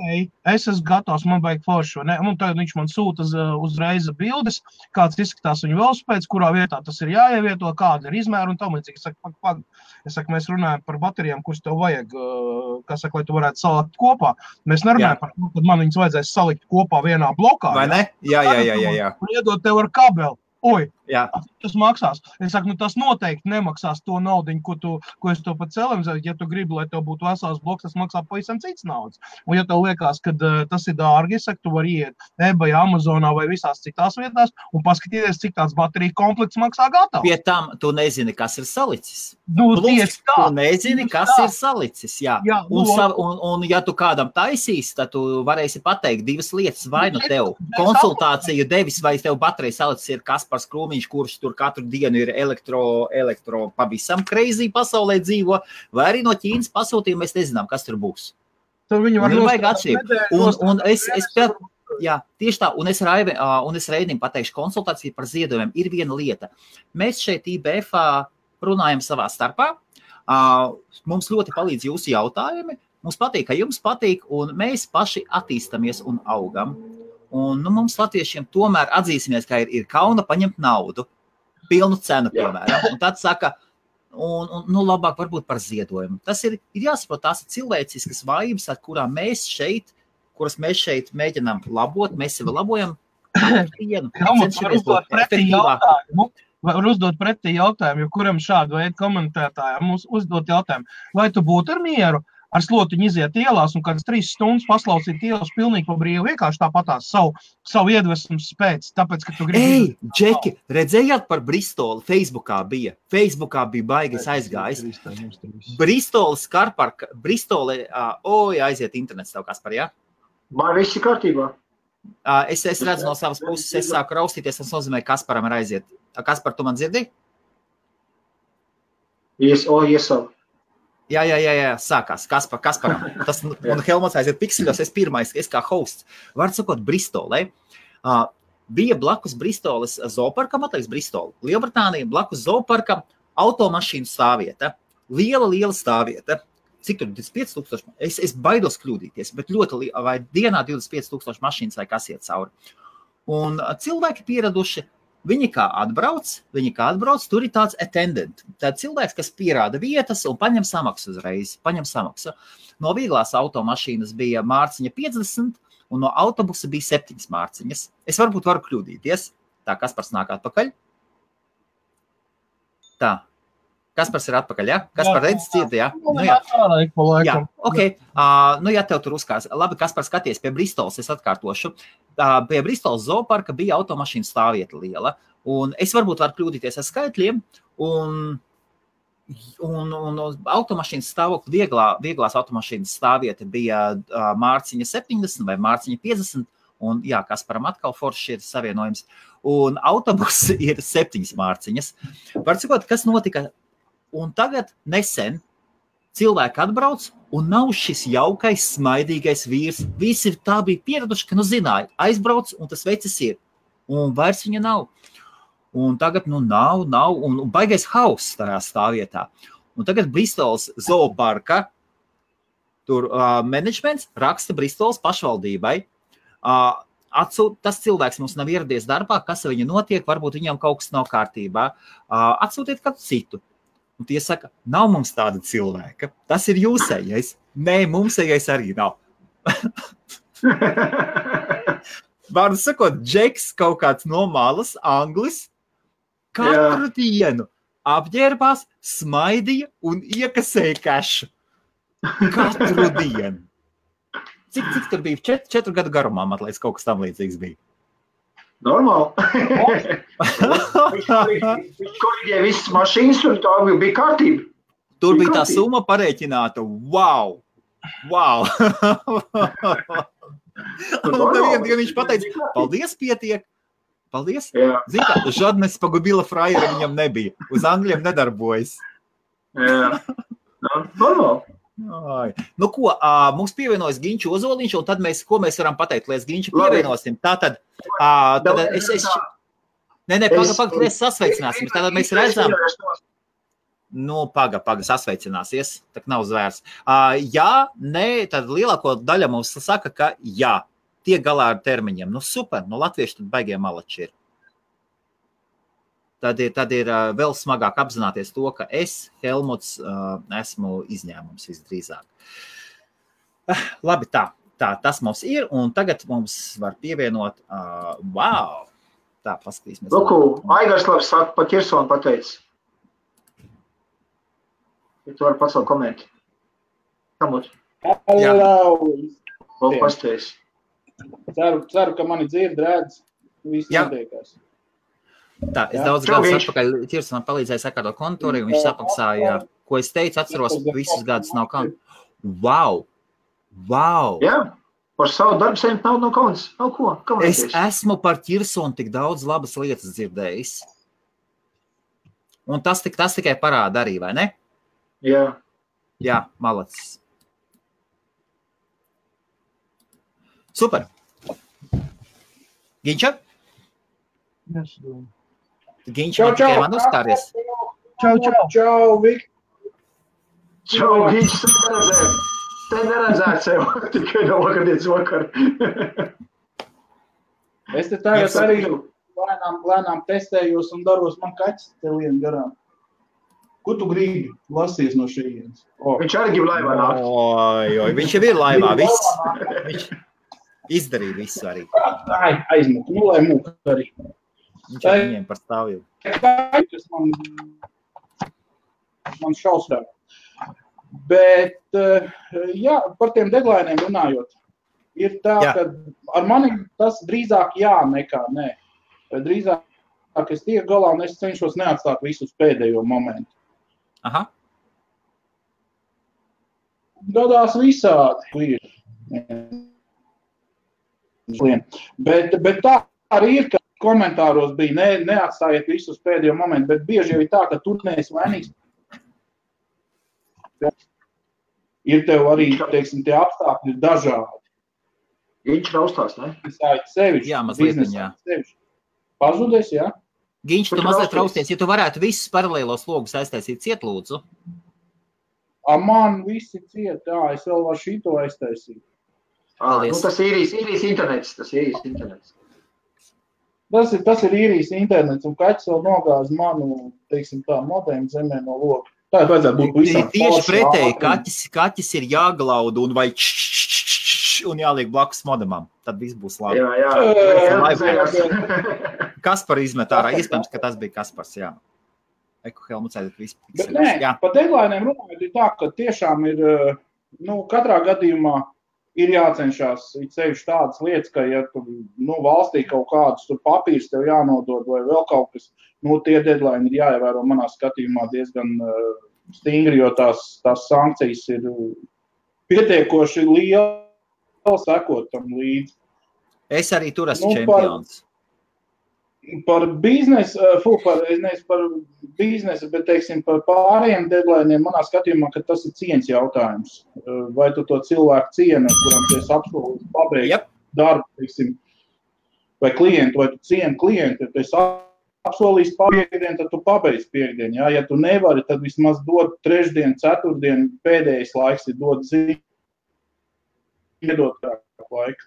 Speaker 1: es esmu gatavs, man vajag foršu, ne? Un tagad viņš man sūta uzreiz bildes, kāds izskatās viņa velosipēds, kurā vietā tas ir jāievieto, kāda ir izmēra un tam līdzīgi. Es saku, mēs runājam par baterijām, kuras tev vajag, lai tu varētu salikt kopā. Mēs nerunājam par to, kad man viņas vajadzēs salikt kopā vienā blokā.
Speaker 2: Vai ne? Jā.
Speaker 1: Un iedot tev ar kabeli. Oi,
Speaker 2: jā.
Speaker 1: Tas maksās. Es saku, tas noteikti nemaksās to naudiņu, ko es to pat celim. Ja tu gribi, lai tev būtu vesels bloks, tas maksā pavisam cits naudas. Un ja tev liekas, ka tas ir dārgi, es saku, tu vari iet eBay, Amazonā vai visās citās vietās un paskatīties, cik tāds baterija komplekts maksā gatavu.
Speaker 2: Pie tam tu nezini, kas ir salicis.
Speaker 1: Tieši tā.
Speaker 2: Tu nezini, kas ir salicis, jā. Un ja tu kādam taisīs, tad tu varēsi pateikt divas lietas, vai nu tev konsultāciju devis, vai tev baterija salicis ir Kaspars Krūmiņš, kurš tur katru dienu ir elektro pavisam crazy pasaulē dzīvo, vai arī no Ķīnas pasūtījumu mēs nezinām, kas tur būs.
Speaker 1: Tur viņi var
Speaker 2: vajag atšķirību. Un tieši tā, un es Reinim pateikšu konsultāciju par ziedojumiem. Ir viena lieta. Mēs šeit IBF-ā runājam savā starpā. Mums ļoti palīdz jūsu jautājumi. Mums patīk, ka jums patīk, un mēs paši attīstamies un augam. Un mums latviešiem tomēr atzīsimies, ka ir kauna paņemt naudu, pilnu cenu, piemēram. Un tad saka, labāk varbūt par ziedojumu. Tas ir jāsaprot, tās ir cilvēciskas vājības, kuras mēs šeit mēģinām labot, mēs sevi labojam.
Speaker 1: Var uzdot pretī jautājumu, jo kuram šādu veidu komentētājiem mums uzdot jautājumu. Vai tu būtu ar mieru ar slotiņu iziet ielās un kādas 3 stundas paslausīt ielas pilnīgi pa brīvu, vienkārši tāpatās savu iedvesmu spēc, tāpēc, ka tu gribi...
Speaker 2: Džeki, redzējāt par Bristoli? Facebookā bija baigais aizgājis. Bristolis Karparka, aiziet internets tev, Kaspar, jā?
Speaker 3: Man viss ir kārtībā.
Speaker 2: Es redzu no savas puses, es sāku raustīties, tas nozīmē, Kasparam ir aiziet. Kaspar, tu man dzirdi?
Speaker 3: Yes.
Speaker 2: Jā, sākās Kasparam. Tas, un Helmuts aiziet pikseļos, es pirmais, es kā hosts. Var sakot, Bristolē. Bija blakus Bristoles zooparkam, atliks Bristoli. Lielbritānija blakus zooparkam automašīnu stāvvieta. Liela stāvvieta. Cik tur 25,000? Es baidos kļūdīties, bet ļoti vai dienā 25,000 mašīnas vai kas iet cauri. Un cilvēki pieraduši, viņi kā atbrauc, tur ir tāds attendant. Tad cilvēks, kas pierāda vietas un paņem samaksu uzreiz, No vieglās automašīnas bija mārciņa 50 un no autobusa bija 7 mārciņas. Es varbūt varu kļūdīties. Tā, Kaspars nāk atpakaļ. Tā. Kaspars ir atpakaļ, jā? Kaspar redz cieti, jā? Jā, ok. Ja tev tur uzkās. Labi, Kaspar, skaties pie Bristoles, es atkārtošu. Pie Bristoles zooparka bija automašīna stāvvieta liela. Un es varbūt varu kļūdīties ar skaitļiem. Un automašīnas stāvokļa, vieglās automašīnas stāvvieta bija mārciņa 70 vai mārciņa 50. Un jā, Kasparam atkal forši ir savienojums. Un autobus ir 7 mārciņas. Var sakot, kas notika? Un tagad nesen cilvēki atbrauc un nav šis jaukais, smaidīgais vīrs. Visi tā bija pieraduši, ka zināja, aizbrauc un tas vecis ir. Un vairs viņa nav. Un tagad nav, un baigais hauss tajā stāvvietā. Un tagad Bristoles zooparka tur menedžments raksta Bristoles pašvaldībai. Tas cilvēks mums nav ieradies darbā, kas ar viņu notiek, varbūt viņam kaut kas nav kārtībā. Atsūtiet kādu citu. Un tie saka, nav mums tāda cilvēka. Tas ir jūsējais. Nē, mums ejais arī nav. Vārdu sakot, Džeks kaut kāds no malas, anglis, katru dienu apģērbās, smaidīja un iekasēja kešu. Katru dienu. Cik tur bija? 4 gadu garumā, man liekas, kaut kas tam līdzīgs bija.
Speaker 3: Normāli. Viņš korģēja visas mašīnas, un tā bija kārtība.
Speaker 2: Tur bija tā summa parēķināta. Wow! Un tad viņš pateica, paldies, pietiek. Paldies. Zini kā, žadnes pagubila frajera viņam nebija. Uz angļiem nedarbojas.
Speaker 3: Jā. Normāli.
Speaker 2: Nu ko, mums pievienojas Ginču Ozoliņš, un tad ko mēs varam pateikt, lai Ginču pievienosim. Tātad mēs sasveicināsim. Tātad mēs redzam. Nu, paga, sasveicināsies, tak nav zvērs. Jā, nē, tad lielāko daļa mums saka, ka jā, tiek galā ar termiņiem. Nu, super, nu, latvieši tad baigie malači ir. Tad ir vēl smagāk apzināties to, ka es, Helmuts, esmu izņēmums visdrīzāk. Labi, tas mums ir, un tagad mums var pievienot, wow, tā, paskatīsimies.
Speaker 3: Luku, Aigars labi saka, pa Kirsonu pateicis. Ja tu vari pacelt komentu. Kamot?
Speaker 4: Hello!
Speaker 3: Pasties.
Speaker 4: Ceru, ka mani dzird, redz, viss notiekās.
Speaker 2: Tā, es daudz gadus atpakaļ Kirsonam palīdzēju sakārtot kontūri, un viņš samaksāja, ko es teicu, atceros, visus gadus nav kauns. Wow!
Speaker 3: Jā, par savu darbu saņemt nav no kauns. Nav ko?
Speaker 2: Es esmu par Kirsonu tik daudz labas lietas dzirdējis. Un tas tikai parāda arī, vai ne?
Speaker 3: Jā.
Speaker 2: Jā, malacis. Super. Ginča? Ginča, man tikai man uzstāries.
Speaker 4: Čau, Vik.
Speaker 3: Čau, Ginča, te neredzēt sev, tikai no vakardienas vakar.
Speaker 4: Es te tagad arī lēnām testējos un daros man kaķis te lien garām. Ko tu gribi lasties no šejienes?
Speaker 3: Viņš arī grib laivā nākt.
Speaker 2: Oi, viņš jau ir laivā, viss. Viņš izdarīja visu arī.
Speaker 4: Aizmuk, nu lai mūk arī.
Speaker 2: Viņš ar viņiem par stāvju.
Speaker 4: Kaķis man šausmē. Bet, jā, par tiem deadlineiem runājot, ir tā, ka ar mani tas drīzāk jā nekā nē. Drīzāk es tiek galā un es cenšos neatstāt visus pēdējo momentu.
Speaker 2: Aha.
Speaker 4: Gadās visādi ir. Bet tā arī ir, ka komentāros bija neatstājiet visus pēdējo momentu, bet bieži jau ir tā, ka tur neesi vainīgs. Ir tev arī, teiksim, tie apstākļi ir dažādi.
Speaker 3: Viņš raustās, ne?
Speaker 4: Sevišķi.
Speaker 2: Jā, mazliet jā.
Speaker 4: Pazudies, jā?
Speaker 2: Ginč, tu mazliet rausties. Ja tu varētu visus paralēlos logus aiztaisīt ciet, lūdzu.
Speaker 4: Man visi ciet, jā, es vēl varu šito aiztaisīt.
Speaker 3: Nu, tas ir īrijas internets,
Speaker 4: Tas ir īrijas internets, un kaķis vēl nogāz manu, teiksim tā, modēmu zemē no loga. Tā vajadzētu būt visām.
Speaker 2: Tieši pretēji, kaķis ir jāglauda un vai un jāliek blakus modemam. Tad viss būs labi. Kaspar izmet ārā. Iespējams, ka tas bija Kaspars, jā. Helmuts aiziet visu.
Speaker 4: Bet nē, pa deadlineiem runājot ir tā, ka tiešām ir, katrā gadījumā ir jācenšās sevišķi tādas lietas, ka, ja tu, valstī kaut kādus tur papīrs tev jānodod vai vēl kaut kas, tie deadline ir jāievēro manā skatījumā diezgan stingri, jo tās sankcijas ir pietiekoši liela sekot tam līdzi.
Speaker 2: Es arī tur esmu čempions.
Speaker 4: Par biznesu, bet, teiksim, par pārējiem deadlineiem manā skatījumā, ka tas ir cieņas jautājums. Vai tu to cilvēku cieni, kuram tu esi apsolījis pabeigt darbu, teiksim, vai klientu, vai tu cieni klientu, ja tu esi apsolījis piekdienu, tad tu pabeidz piekdienu. Ja tu nevari, tad vismaz dod trešdienu, ceturtdienu, pēdējais laiks ir dod ziņu, iedot laiku.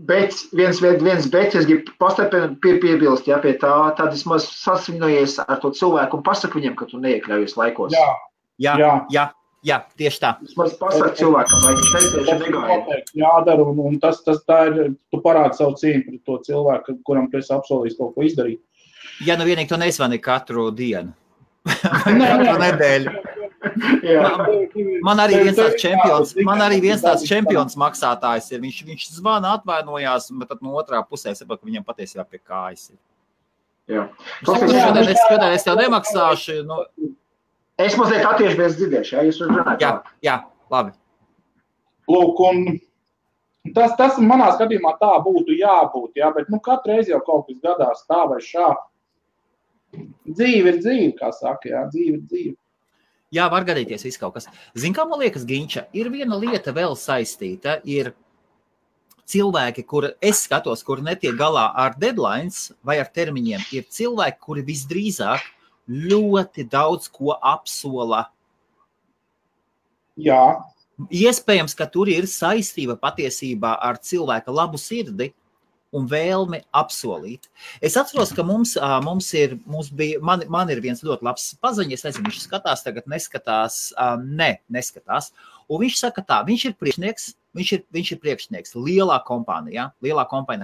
Speaker 3: Bet viens bet, es gribu piebilst, pie tā, tad vismaz sasvinojies ar to cilvēku un pasaka viņam, ka tu neiekļaujies laikos.
Speaker 2: Jā. Jā, tieši tā.
Speaker 3: Vismaz pasaka cilvēkam, vai viņš necieši negāja.
Speaker 4: Jādara, un tas tā ir, tu parādi savu cīņu pret to cilvēku, kuram tu esi apsolījis kaut ko izdarīt.
Speaker 2: Ja nu vienīgi to nezvani katru dienu. Katru nedēļu. Man arī viens tāds čempions maksātājs ir. Viņš zvana, atvainojās, bet tad no otrā pusē saprot, ka viņam patiesībā pie kājas ir.
Speaker 3: Jā.
Speaker 2: Šodien es tev nemaksāšu. Nu.
Speaker 3: Es mazliet attiešies dzirdēšu, ja jūs runājat.
Speaker 2: Jā, labi.
Speaker 4: Lūk, un tas manā skatījumā tā būtu jābūt, jā, bet katru reizi jau kaut kas gadās tā vai šā. Dzīve ir dzīve, kā saka, jā, dzīve ir dzīve.
Speaker 2: Jā, var gadīties viss kaut kas. Zin, kā man liekas, Ginča, ir viena lieta vēl saistīta, ir cilvēki, kur es skatos, kur netiek galā ar deadlines vai ar termiņiem, ir cilvēki, kuri visdrīzāk ļoti daudz ko apsola.
Speaker 4: Jā.
Speaker 2: Iespējams, ka tur ir saistība patiesībā ar cilvēka labu sirdi un vēlmi apsolīt. Es atceros, ka man ir viens ļoti labs paziņa, es nezinu, viņš skatās tagad, neskatās. Un viņš saka tā, viņš ir priekšnieks lielā kompānijā,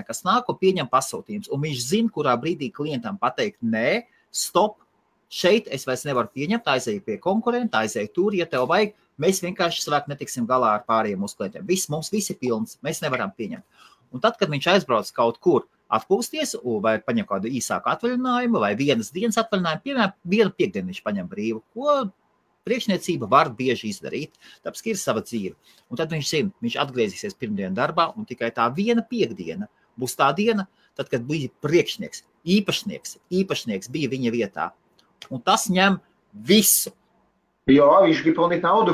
Speaker 2: kas nāk un pieņem pasūtījums, un viņš zina, kurā brīdī klientam pateikt, nē, stop, šeit es vairs nevaru pieņemt, aizēju pie konkurenta, aizēju tur, ja tev vajag, mēs vienkārši savāk netiksim galā ar pārējiem uz klientiem. Mums viss ir pilns, mēs nevaram pieņemt. Un tad, kad viņš aizbrauc kaut kur atpūsties, vai paņem kādu īsāku atvaļinājumu, vai vienas dienas atvaļinājumu, piemēram, vienu piekdienu viņš paņem brīvu, ko priekšniecība var bieži izdarīt, tāpēc, ka ir sava dzīve. Un tad viņš atgriezīsies pirmdien darbā, un tikai tā viena piekdiena būs tā diena, tad, kad bija priekšnieks, īpašnieks bija viņa vietā. Un tas ņem visu.
Speaker 3: Jā, viņš grib pelnīt naudu.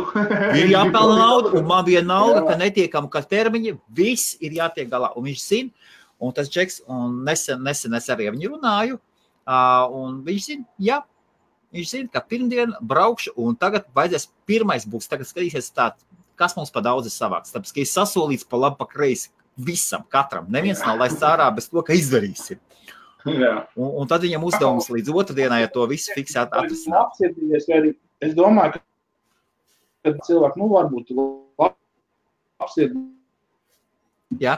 Speaker 2: Ir jāpelna naudu, un man bija nauda, ka netiekam, ka termiņi, viss ir jātiek galā. Un viņš zina, un tas Džeks, un nesen es arī viņu runāju, un viņš zina, ka pirmdien braukšu, un tagad vajadzēs pirmais būs, tagad skatīsies tā, kas mums pa daudz ir savāks. Tāpēc, ka ir sasolīts pa labi, pa kreisi visam, katram. Neviens nav laists ārā bez to, ka izdarīsim. Un tad viņam uzdevums līdz otrdienai, ja to visu fiksēt atrisināt.
Speaker 4: Es domāju, ka cilvēki, varbūt apsiedīgs.
Speaker 2: Jā.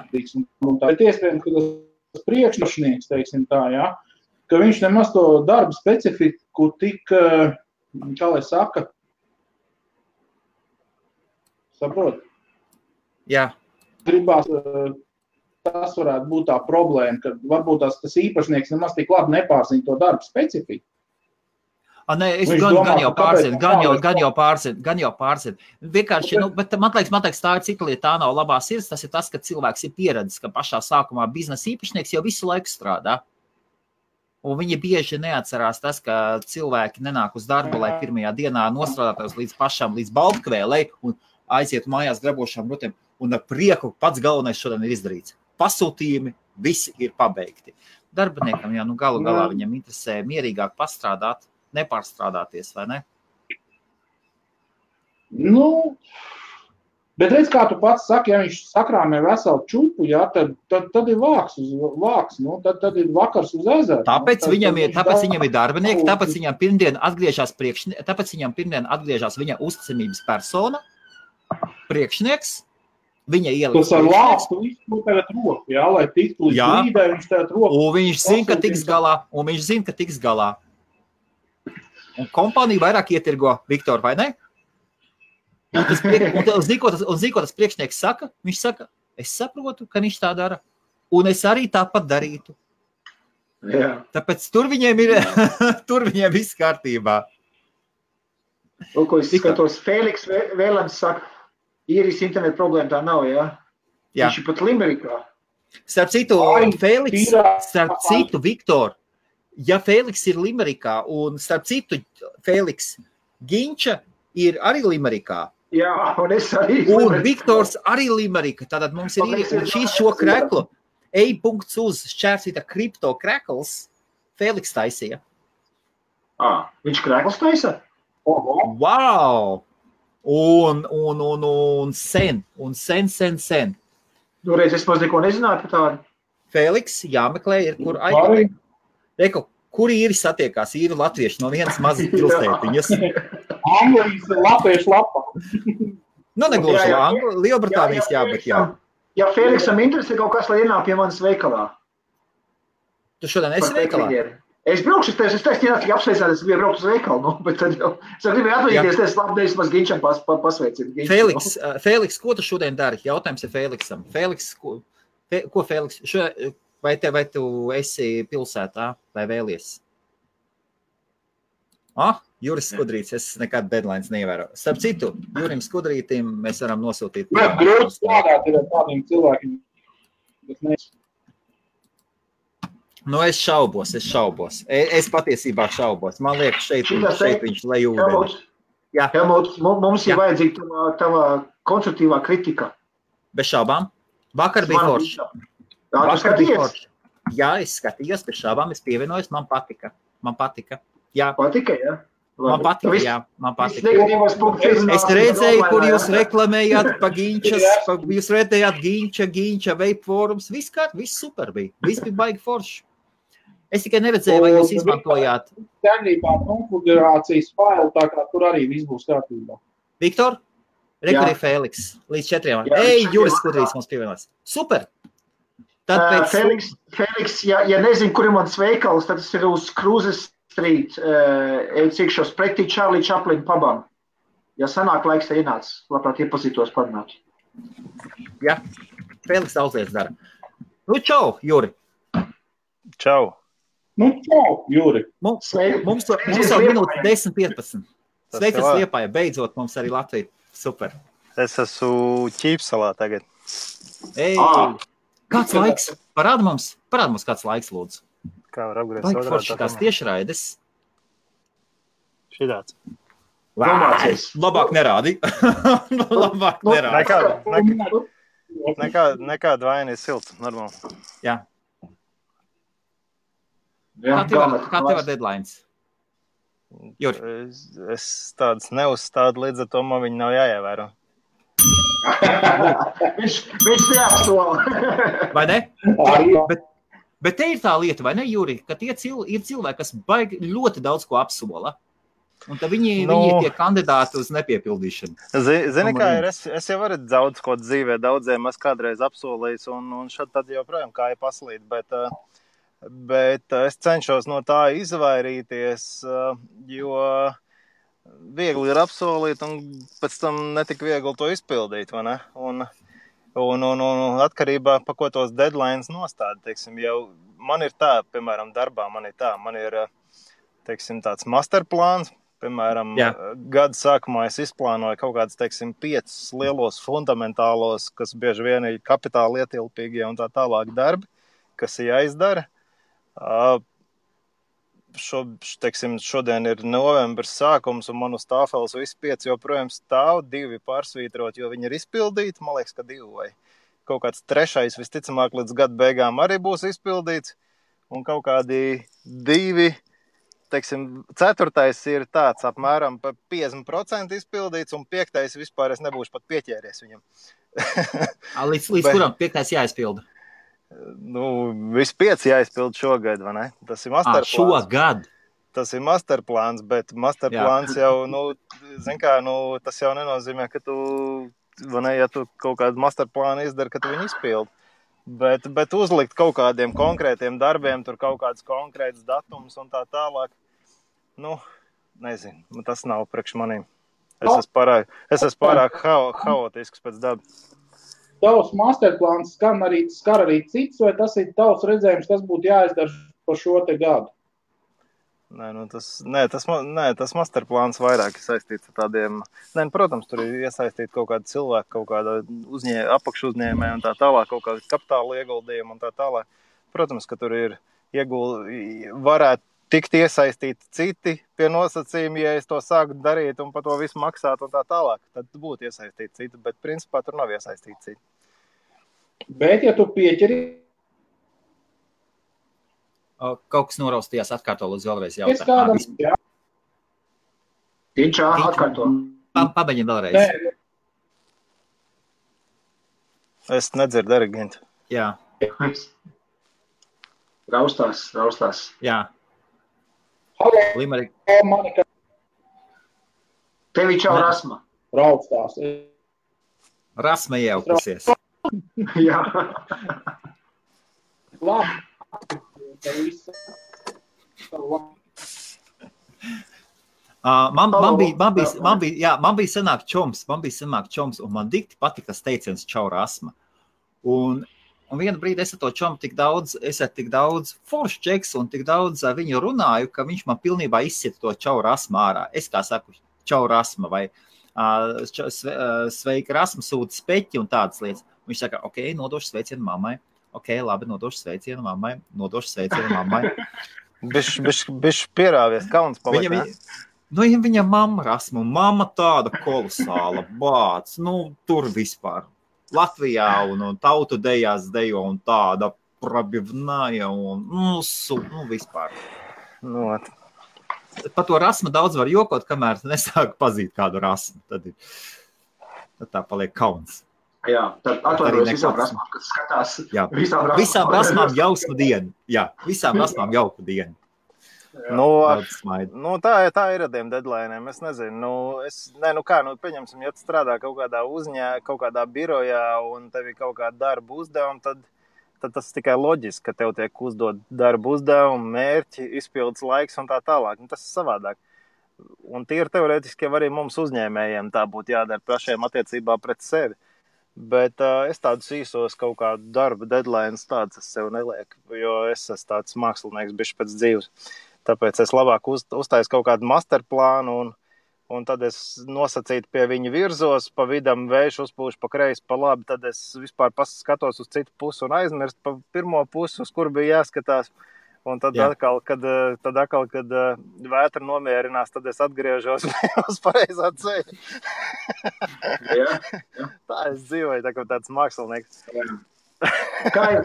Speaker 4: Un tā ir iespējams, ka tas priekšnieks, teiksim tā, jā, ka viņš nemaz to darbu specifiku tik, kā lai saka, saprot?
Speaker 2: Jā.
Speaker 4: Gribās, tas varētu būt tā problēma, ka varbūt tas īpašnieks nemaz tik labi nepārzina to darbu specifiku.
Speaker 2: Nē, es gan jau pārzinu. Vienkārši, bet man liekas, tā ir cita lieta, tā nav labā sirds, tas ir tas, ka cilvēks ir pieredzis, ka pašā sākumā biznesa īpašnieks jau visu laiku strādā. Un viņi bieži neatcerās tas, ka cilvēki nenāk uz darbu, lai pirmajā dienā nostrādātos līdz baltkvēlei un aiziet mājās grabošām rutēm. Un ar prieku pats galvenais šodien ir izdarīts. Pasūtījumi, visi ir pabeigti. Darbiniekam, galu galā viņam interesē mierīgāk pastrādāt, nepārstrādāties, vai ne?
Speaker 4: Bet redz, kā tu pats saki, ja viņš sakrāmē veselu čupu, jā, tad ir vāks, tad ir vakars uz ezeru.
Speaker 2: Tāpēc viņam ir darbinieki, tāpēc viņam pirmdien atgriežās viņa uzticamības persona, priekšnieks, viņa ieliks.
Speaker 4: Tas ar lāstu visu tagad roku, jā, lai tiktu līdz līdē, viņš tagad roku.
Speaker 2: Un viņš zina, ka tiks galā. Un kompānija vairāk ietirgo Viktoru, vai ne? Un ziko tas priekšnieks saka, viņš saka, es saprotu, ka viņš tā dara, un es arī tāpat darītu.
Speaker 3: Jā.
Speaker 2: Tāpēc tur viņiem viss kārtībā.
Speaker 3: Ko es skatos, Fēliks Vēlens saka, īrijas internetu problēma tā nav, jā?
Speaker 2: Jā.
Speaker 3: Viņš ir pat Limerikā.
Speaker 2: Starp citu, Viktor, ja Fēliks ir Limerikā, un starp citu, Fēliks Ginča ir arī Limerikā.
Speaker 3: Jā, un es arī.
Speaker 2: Un Viktors arī Limerika. Tātad mums ir šīs šo kreklu. E.uz šķērsīta kripto krekls Fēliks taisīja.
Speaker 3: Viņš krekls taisa?
Speaker 2: Wow! Un sen.
Speaker 3: Reiz es maz neko nezināju par tādu.
Speaker 2: Fēliks jāmeklē ir, kur aizmeklē. Kur īri satiekās, īri latvieši no vienas mazas pilsētiņas.
Speaker 4: Anglijas latviešu lapa.
Speaker 2: Nu, negluži Lielbritānijas, jā, bet jā.
Speaker 3: Ja Feliksam interesē kaut kas, lai ienāk pie manis veikalā.
Speaker 2: Tu šodien esi veikalā?
Speaker 3: Es braukšu, es teicu, apsveicāt, es gribēju braukt uz veikalu, nu, bet tad jau, es gribēju atvaļīties, es labdēļas maz Ginčam pasveicinu.
Speaker 2: Feliks, ko tu šodien dari? Jautājums ir Feliksam. Feliks, ko Feliks? Vai tu esi pilsētā vai vēlies? Juris Skudrīts, es nekad deadlines neievēru. Starp citu, Jurim Skudrītim mēs varam nosūtīt.
Speaker 4: Grūti strādāt ir ar tādiem cilvēkiem.
Speaker 2: Nu, es šaubos. Es patiesībā šaubos. Man liekas, šeit viņš lai ūdeni.
Speaker 3: Helmut, mums ir vajadzīga tava konstruktīvā kritika.
Speaker 2: Bez šaubām. Vakar bija forši. Jā, es skatījos, bez šaubām, es pievienojos, man patika. Jā.
Speaker 3: Patika, jā?
Speaker 2: Man patika. Es redzēju, kur jūs reklamējāt pa Ginčas, jūs redzējāt Ginča, Vape Forums, viss super bija. Viss bija baigi forši. Es tikai neredzēju, vai jūs izmantojāt.
Speaker 4: Tēnībā konfigurācijas failu, tā kā tur arī viss būs kārtībā.
Speaker 2: Viktor? Rekurī Feliks. Līdz 4. Juris Skudrīts mums pievienās. Super!
Speaker 3: Feliks, ja nezinu, kur ir mans veikals, tad tas ir uz Cruises Street, cikšos pretī Charlie Chaplin pabam. Ja sanāk laiks, tad ienāc, labprāt iepazītos parunāt.
Speaker 2: Jā, Feliks daudz lietas dara. Nu, čau, Juri.
Speaker 5: Čau.
Speaker 4: Nu, čau, Juri.
Speaker 2: Mums jau minūte 10-15. Sveikas Liepāja, beidzot mums arī Latvija. Super.
Speaker 5: Es esmu Ķīpsalā tagad.
Speaker 2: Kāds laiks? Parāda mums kāds laiks, lūdzu.
Speaker 5: Kā var apgriezt?
Speaker 2: Baigi forši tās tiešraides.
Speaker 5: Šitāds.
Speaker 2: Labāk nerādi.
Speaker 5: Nekāda vaina ir silts, normāli.
Speaker 2: Jā. Kā tev ar deadlines? Juri?
Speaker 5: Es tādas neuzstādu, līdz ar to man viņi nav jāievēro.
Speaker 3: Viņš neapsola.
Speaker 2: Vai ne? Bet te ir tā lieta, vai ne, Juri, ka tie ir cilvēki, kas baigi ļoti daudz ko apsola. Un tad viņi ir tie kandidāti uz nepiepildīšanu.
Speaker 5: Zini, kā ir, es jau varu daudz ko dzīvē, daudziem es kādreiz apsolījis, un šad tad joprojām kā ir paslīd, bet es cenšos no tā izvairīties, jo viegli ir apsolīt, un pēc tam netik viegli to izpildīt, vai ne? Un atkarībā, pa ko tos deadlines nostāda, teiksim, jau man ir tā, piemēram, darbā man ir, teiksim, tāds masterplāns, piemēram, gada sākumā es izplānoju kaut kāds, teiksim, 5 lielos fundamentālos, kas bieži vien ir kapitāli ietilpīgie un tā tālāk darbi, kas ir jāizdara. Teiksim, šodien ir novembris sākums, un man uz tāfeles visi 5 joprojām stāv, 2 pārsvītrot, jo viņi ir izpildīti, man liekas, ka 2 vai kaut kāds 3. visticamāk līdz gada beigām arī būs izpildīts, un kaut kādi 2, teiksim, 4. ir tāds apmēram pa 50% izpildīts, un 5. vispār es nebūšu pat pieķēries viņam.
Speaker 2: Līdz kuram 5. jāizpilda?
Speaker 5: Nu, visi 5 jāizpild šogad, vai ne? Tas ir masterplāns.
Speaker 2: Šogad?
Speaker 5: Tas ir masterplāns, bet masterplāns jau, zin kā, tas jau nenozīmē, ka tu, vai ne, ja tu kaut kādu masterplānu izdari, ka tu viņu izpildi. Bet uzlikt kaut kādiem konkrētiem darbiem, tur kaut kāds konkrēts datums un tā tālāk, nezinu, tas nav priekš manīm. Es esmu pārāk haotisks pēc dabas.
Speaker 4: Tavs masterplāns skar arī cits, vai tas ir tavs redzējums, kas būtu jāizdara par šo te gadu?
Speaker 5: Tas masterplāns vairāk ir saistīts ar tādiem, protams, tur ir iesaistīti kaut kādi cilvēki, kaut kāda apakšuzņēmēja un tā tālāk, kaut kāda kapitāla ieguldījuma un tā tālāk. Protams, ka tur ir varētu tikt iesaistīti citi pie nosacījumi, ja es to sāku darīt un par to visu maksāt un tā tālāk, tad būtu iesaistīti citi, bet principā tur nav iesaistīti citi.
Speaker 4: Bet, ja tu pieķeri...
Speaker 2: Kaut kas noraustījās, atkārto lūdzu vēlreiz jautājumu.
Speaker 3: Ginčā, atkārto.
Speaker 2: Pabeņi vēlreiz.
Speaker 5: Es nedzirdu arī, Gintu.
Speaker 2: Jā.
Speaker 3: Raustās.
Speaker 2: Jā. Limerik.
Speaker 3: Tevi čau rasma.
Speaker 4: Raustās.
Speaker 2: Rasma iejaukusies.
Speaker 3: Jā.
Speaker 4: Labi.
Speaker 2: Man bija sanāk čoms, un man dikti patika tas teiciens čau rasma. Un vienu brīdi es ar to čomu tik daudz foršu čeks un tik daudz ar viņu runāju, ka viņš man pilnībā izsit to čau rasmu ārā. Es kā saku, čau rasma vai sveika rasma sūta speķi un tādas lietas. Viņš saka, ok, nodošu sveicienu mammai. Ok, labi, nodošu sveicienu mammai.
Speaker 5: Bišķi pierāvies, kauns paliek.
Speaker 2: Viņa mamma rasma, un mamma tāda kolosāla bāc, tur vispār. Latvijā un tautu dejās dejo un tāda probivnāja un vispār. Par to rasmu daudz var jokot, kamēr nesāk pazīt kādu rasmu. Tad tā paliek kauns.
Speaker 3: Jā, tad atvainojos visām rasmām, kas skatās.
Speaker 2: Jā, visām rasmām jausmu dienu. Jā, visām rasmām jauku dienu.
Speaker 5: Tā ir ar tiem deadline'iem, es nezinu. Pieņemsim, ja tu strādā kaut kādā birojā un tev ir kaut kāda darba uzdevuma, tad tas tikai loģiski, ka tev tiek uzdot darba uzdevumu, mērķi, izpildes laiks un tā tālāk. Tas ir savādāk. Un tīri teorētiski arī mums uzņēmējiem tā būtu jādara pašiem attiecībā pret sevi. Bet es tādus īsos kaut kādu darba deadlines tādus es sev nelieku, jo es esmu tāds mākslinieks bišķi pēc dzīves. Tāpēc es labāk uztaisu kaut kādu masterplānu un tad es nosacītu pie viņa virzos, pa vidam vējš uzpūš pa kreisi, pa labi, tad es vispār skatos uz citu pusi un aizmirst pa pirmo pusi, uz kur bija jāskatās. Un tad atkal, kad vētra nomierinās, tad es atgriežos uz pareizā ceļa. Tā es dzīvoju, tā kā tāds mākslinieks.
Speaker 3: Kā ir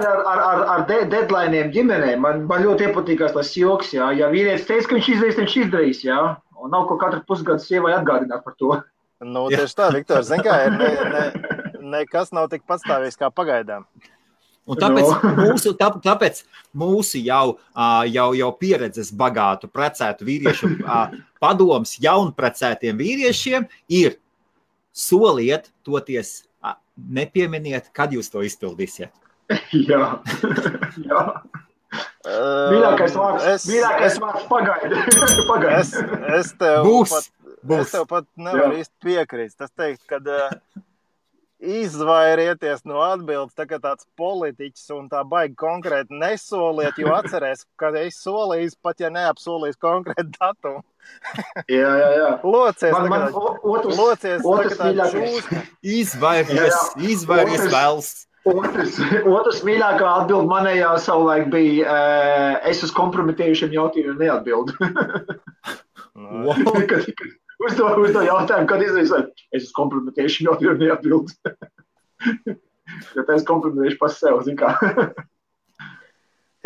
Speaker 3: ar deadline'iem ģimenē? Man ļoti iepatīkās tas joks, jā. Ja vīrietis teica, ka viņš izdarīs, jā. Un nav ko katru pusgadu sievai atgādināt par to.
Speaker 5: Tieši tā, Viktor, zin kā, nekas nav tik patstāvīgs kā pagaidām.
Speaker 2: Un tāpēc mūsu jau pieredzes bagātu precētu vīriešu padoms jaunprecētiem vīriešiem ir soliet toties, nepieminiet, kad jūs to izpildīsiet.
Speaker 3: Jā. Mīļākais vārds pagaidi.
Speaker 5: Es tev pat nevaru īsti piekrist. Tas teikt, kad izvairieties no atbildes, tā kā tāds politiķis un tā baigi konkrēti nesoliet, jo atcerēs, ka es solīju, pat ja neapsolīs konkrētu datumu.
Speaker 3: Jā.
Speaker 5: Locies,
Speaker 2: izvairies vēls.
Speaker 3: Otrs mīļākā atbild manējā savulaik bija, es uz kompromitējušiem jautājumiem neatbildu. Uzdo jautājumu, kad izrīsot, es uz kompromitējušiem jautājumiem neatbildu. Jo tā es kompromitējuši pas sev, zin kā.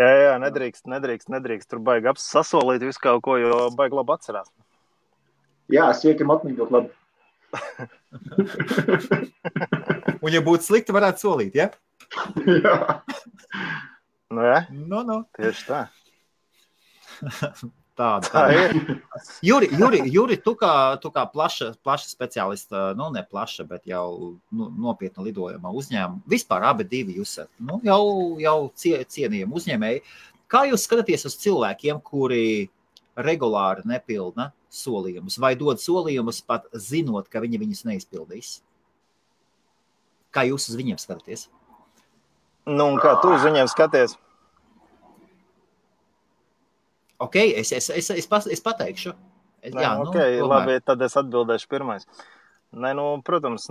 Speaker 5: Jā, nedrīkst. Tur baigi sasolīt visu kaut ko, jo baigi labi atcerās.
Speaker 3: Jā, siekiem atmiņot labi.
Speaker 2: Un ja būtu slikti, varētu solīt, ja?
Speaker 3: Jā.
Speaker 2: No.
Speaker 5: Tieši tā.
Speaker 2: Tā ir. Juri, tu kā plaša speciālista, ne plaša, bet jau nopietna lidojumā uzņēmuma. Vispār abi divi jūs jau cienījami uzņēmēji. Kā jūs skatāties uz cilvēkiem, kuri regulāri nepilda solījumus vai dod solījumus pat zinot, ka viņi viņus neizpildīs? Kā jūs uz viņiem skatāties?
Speaker 5: Un kā tu uz viņiem skaties?
Speaker 2: Ok, es pateikšu.
Speaker 5: Labi, tad es atbildēšu pirmais. Protams,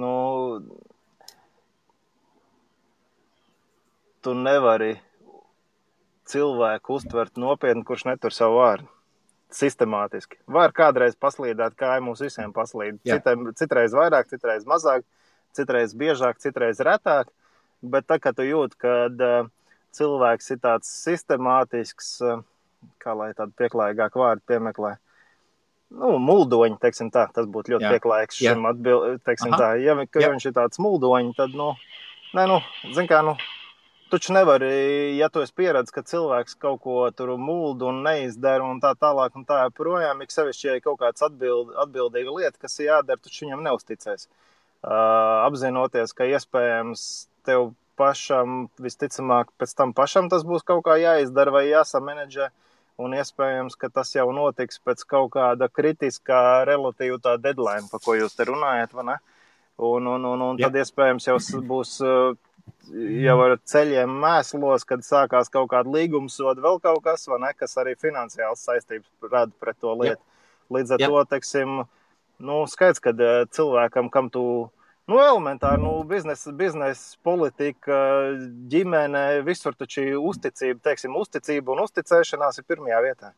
Speaker 5: tu nevari cilvēku uztvert nopietni, kurš netur savu vārdu. Sistemātiski. Var kādreiz paslīdēt, kā mums visiem paslīd. Citreiz vairāk, citreiz mazāk, citreiz biežāk, citreiz retāk. Bet tā, ka tu jūt, kad cilvēks ir tāds sistemātisks, kā lai tādu pieklājīgāku vārdu piemeklē. Muldoņi, teiksim tā, tas būtu ļoti pieklājīgs šim atbild, teiksim tā. Ja viņš ir tāds muldoņi, tad, zin kā, taču nevari, ja tu esi pieredzis, ka cilvēks kaut ko tur muldu un neizdara un tā tālāk un tā projām, ik sevišķi, ja kaut kāds atbildīga lieta, kas ir jādara, taču viņam neusticēs. Apzinoties, ka iespējams tev pašam, visticamāk, pēc tam pašam tas būs kaut kā jāizdara vai jāsamanedžē, un iespējams, ka tas jau notiks pēc kaut kāda kritiskā relatīva tā deadline, pa ko jūs te runājat, vai ne? Un tad iespējams jau būs jau ar ceļiem mēslos, kad sākās kaut kāda līgumsoda, vēl kaut kas, vai ne, kas arī finansiāls saistības rada pret to lietu. Līdz ar to, teiksim, skaidrs, kad cilvēkam, kam tu, elementāri, biznesa politika, ģimene, visur taču uzticība, teiksim, uzticība un uzticēšanās ir pirmajā vietā.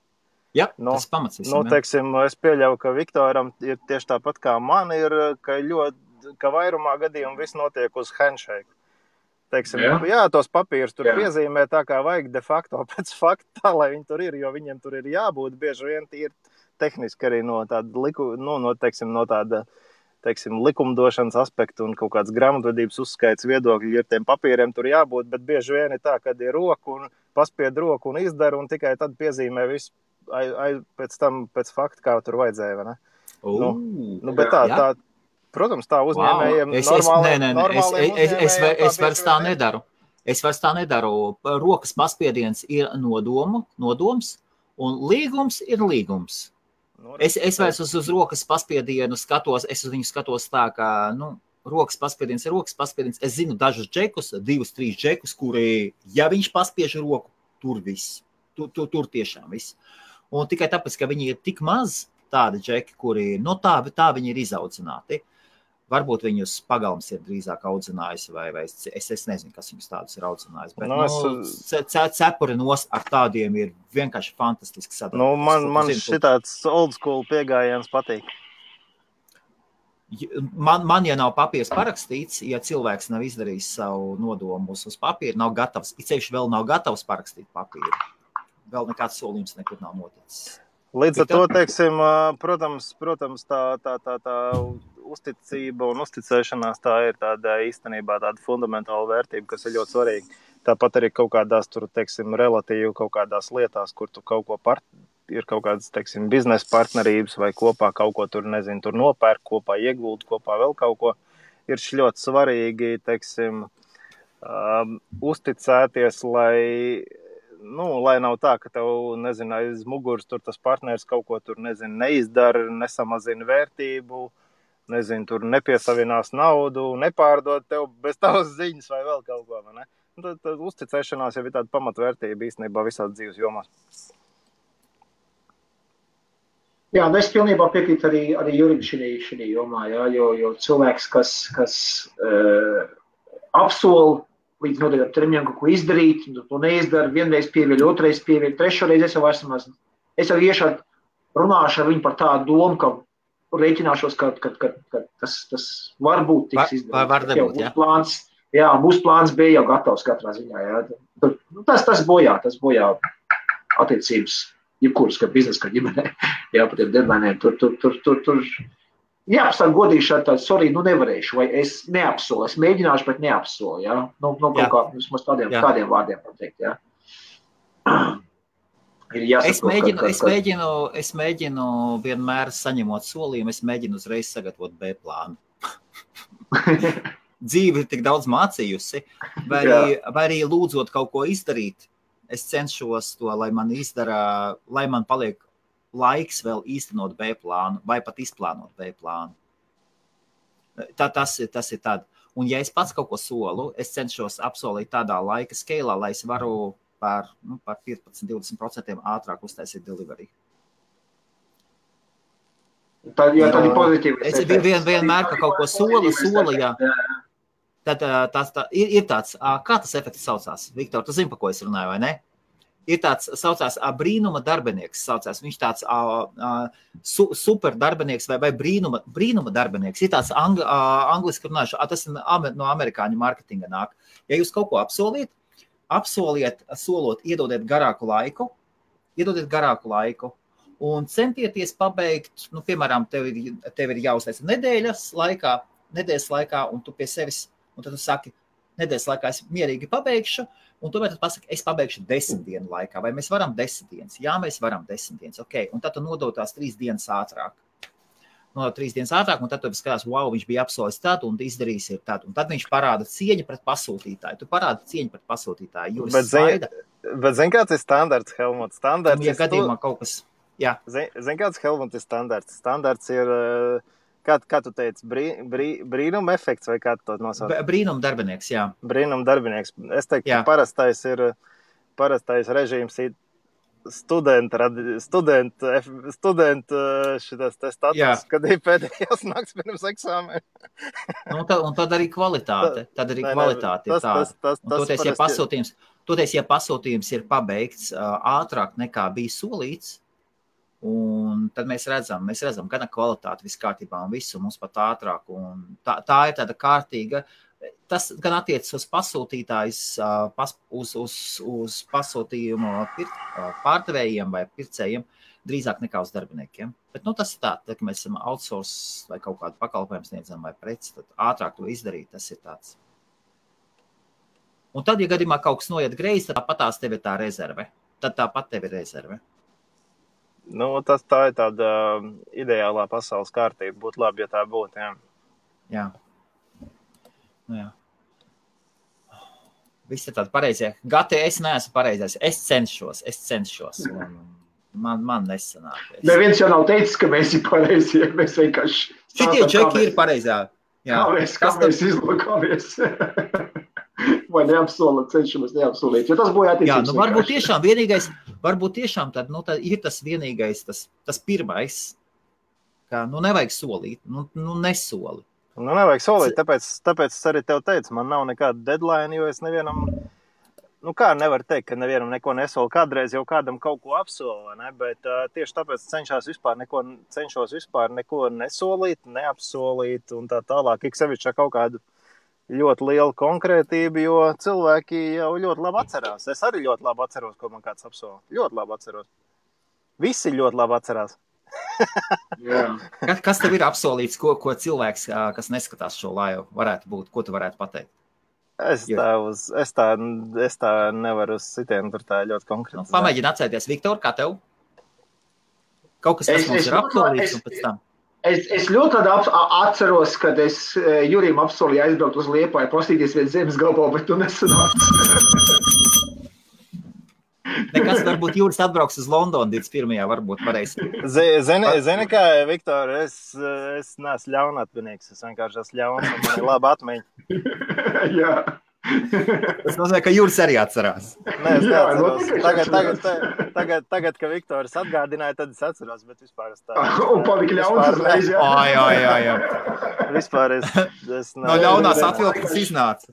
Speaker 2: Jā, tas pamats visam.
Speaker 5: Teiksim, es pieļauju, ka Viktoram ir tieši tāpat kā man ir, ka vairumā gadījumu viss notiek uz handshake. Teiksim, jā, tos papīrus tur piezīmē tā, kā vajag de facto pēc fakta, tā, lai viņi tur ir, jo viņiem tur ir jābūt bieži vien tīri tehniski arī no tāda, teiksim, likumdošanas aspektu un kaut kāds grāmatvedības uzskaits viedokļi ir tiem papīriem tur jābūt, bet bieži vien ir tā, kad ir roku un paspied roku un izdara un tikai tad piezīmē visu pēc tam, pēc fakta, kā tur vajadzēja, vai ne? Bet tā, protams, tā uzņēmējiem
Speaker 2: Es vairs tā nedaru. Es vairs tā nedaru. Rokas paspiediens ir nodoms, un līgums ir līgums. Es vairs uz rokas paspiedienu skatos, es uz viņu skatos tā, ka, rokas paspiediens ir rokas paspiediens. Es zinu dažus džekus, 2-3 džekus, kuri, ja viņš paspiež roku, tur viss. Tur tiešām viss. Un tikai tāpēc, ka viņi ir tik maz tādi džeki, kuri, tā viņi ir izaudzināti. Varbūt viņus pagalms ir drīzāk audzinājis, vai es nezinu, kas viņus tādus ir audzinājis. Bet cepuri ar tādiem ir vienkārši fantastiski sadarbības.
Speaker 5: Man šitāds old school piegājiens patīk.
Speaker 2: Man, ja nav papīrs parakstīts, ja cilvēks nav izdarījis savu nodomu uz papīru, nav gatavs, ceļš vēl nav gatavs parakstīt papīru. Vēl nekāds solījums nekur nav noticis.
Speaker 5: Līdz ar to, teiksim, protams, tā uzticība un uzticēšanās tā ir tāda īstenībā tāda fundamentāla vērtība, kas ir ļoti svarīga. Tāpat arī kaut kādās tur, teiksim, relatīvi kaut kādās lietās, kur tu kaut ko ir kaut kādas, teiksim, biznesa partnerības vai kopā kaut ko tur, nezinu, tur nopērk, kopā ieguld, kopā vēl kaut ko. Ir ļoti svarīgi, teiksim, uzticēties, lai nav tā, ka tev, nezinu, aiz muguras tur tas partners kaut ko tur, nezinu, neizdara, nesamazina vērtību, nezinu, tur nepiesavinās naudu, nepārdod tev bez tavas ziņas vai vēl kaut ko, vai ne? Tad uzticēšanās jau ir tāda pamatvērtība īstenībā visās dzīves jomās.
Speaker 3: Jā, es pilnībā piekrītu arī Jurim šī jomā, jā, jo cilvēks, kas apsola līdz noteiktam termiņam kaut ko izdarīt, to neizdara, vienreiz pieviļ, otrais pieviļ, trešoreiz es jau iešu runāšu ar viņu par tādu domu, ka rēķināšos, ka tas varbūt tiks izdarīt. Būs plāns B jau gatavs katrā ziņā. Jā. Tas bojā attiecības, jebkuras, kā biznesa, kā ģimenē, jā, par tiem deadlineiem. Tur jāapstāv godīgi šādi, sorry, nevarēšu, vai es neapsolu, es mēģināšu, bet neapsolu, jā. Vismaz tādiem vārdiem pateikt, jā.
Speaker 2: Es mēģinu vienmēr saņemot solījumu, es mēģinu uzreiz sagatavot B plānu. Dzīve ir tik daudz mācījusi, vai arī lūdzot kaut ko izdarīt, es cenšos to, lai man izdara, lai man paliek laiks vēl īstenot B plānu, vai pat izplānot B plānu. Tas ir tad. Un ja es pats kaut ko solu, es cenšos apsolīt tādā laika skeilā, lai es varu par 15-20% ātrāk uztaisīt delivery.
Speaker 3: Tā ir pozitīva.
Speaker 2: Es vienmēr, ka kaut ko sola, jā. Tad ir tāds, kā tas efekts saucās? Viktor, tu zini, pa ko es runāju, vai ne? Ir tāds, saucās brīnuma darbinieks, viņš tāds super darbinieks vai brīnuma darbinieks. Ir tāds angliski runājuši, tas no amerikāņu marketinga nāk. Ja jūs kaut ko solot, iedodiet garāku laiku un centieties pabeigt, piemēram, tev ir jāuztaisa nedēļas laikā, un tu pie sevis, un tad tu saki, nedēļas laikā es mierīgi pabeigšu, un tomēr tu pasaki, es pabeigšu 10 dienu laikā, vai mēs varam 10 dienas? Jā, mēs varam 10 dienas, ok, un tad tu nodod tās 3 dienas ātrāk. Nodod 3 dienas ātrāk, un tad tu skatās, wow, viņš bija apsolis tad, un izdarījis ir tad, un tad viņš parāda cieņu pret pasūtītāju. Tu parādi cieņu pret pasūtītāju, jo
Speaker 5: Bet zini, kāds ir standarts, Helmut? Standarts
Speaker 2: ja gadījumā kaut kas, jā.
Speaker 5: Zini, kāds, Helmut, ir standarts? Standarts ir, kā tu teici, brīnuma efekts, vai kā tu to nosauc?
Speaker 2: Brīnuma darbinieks, jā.
Speaker 5: Brīnuma darbinieks. Es teiktu, ka parastais režīms ir studenta šitas te status, kad ir pēdējās nakts pirms eksāmena.
Speaker 2: Un tad arī kvalitāte. Toties, ja pasūtījums ir pabeigts ātrāk nekā bija solīts, un tad mēs redzam gan kvalitāti viss kārtībā un visu mums pat ātrāk. Un tā ir tāda kārtīga. Tas gan attiecas uz pasūtītājs, uz pasūtījumu pārdevējiem vai pircējiem, drīzāk nekā uz darbiniekiem. Bet tas ir tā, ka mēs esam outsource vai kaut kādu pakalpojumu sniedzam vai preci, tad ātrāk to izdarīt, tas ir tāds. Un tad, ja gadījumā kaut kas noiet greizi, tad tāpatās tev ir tā rezerve. Tad tāpat tev ir rezerve.
Speaker 5: Tā ir tāda ideālā pasaules kārtība. Būtu labi, ja tā būtu, jā.
Speaker 2: Jā. Viss ir tādi pareizie. Gati, es neesmu pareizais. Es cenšos. Man nesanāk.
Speaker 3: Neviens jau nav teicis, ka mēs ir pareizie. Mēs vienkārši...
Speaker 2: Šitie čeki ir pareizā.
Speaker 3: Kā mēs izlokāmies. Vai neapsolat, cenšamies neapsolīt. Jo tas būtu attiecības.
Speaker 2: Jā, varbūt tiešām tad ir tas vienīgais, tas pirmais, ka nevajag solīt, nesoli.
Speaker 5: Nevajag solīt, tāpēc es arī tev teicu, man nav nekāda deadline, jo es nevienam, kā nevar teikt, ka nevienam neko nesolu. Kādreiz jau kādam kaut ko apsolu, ne? Bet tieši tāpēc cenšos vispār neko nesolīt, neapsolīt un tā tālāk. Ik sevišķi kaut kādu ļoti lielu konkrētību, jo cilvēki jau ļoti labi atcerās. Es arī ļoti labi atceros, ko man kāds apsola. Ļoti labi atceros. Visi ļoti labi atcerās.
Speaker 2: Kas tev ir apsolīts, ko cilvēks, kas neskatās šo laivu, varētu būt? Ko tu varētu pateikt?
Speaker 5: Es tā nevaru uz citiem, tur tā ļoti konkrēti.
Speaker 2: Pamēģini atcerēties. Viktor, kā tev? Kaut kas mums ir apsolīts un pēc tam.
Speaker 3: Es ļoti atceros, kad es Jurim apsolīju aizbraukt uz Liepāju, pastīties viens zemes gabalu, bet tu nesanāci.
Speaker 2: Nekas, varbūt Juris atbrauks uz Londonu 21. varbūt varēs.
Speaker 5: Zini kā, Viktor, es neesmu ļaunatvinīgs, es vienkārši esmu ļauns un man ir laba atmiņa.
Speaker 3: Jā.
Speaker 2: Tas nozīmē, ka Juris arī atcerās.
Speaker 5: Nē, es neatceros. Tagad, ka Viktoris atgādināja, tad es atceros, bet vispār es tā...
Speaker 3: Un palika ļauns uzreiz, jā.
Speaker 2: Jā.
Speaker 5: Vispār es
Speaker 2: no ļaunās atvilktas iznāca.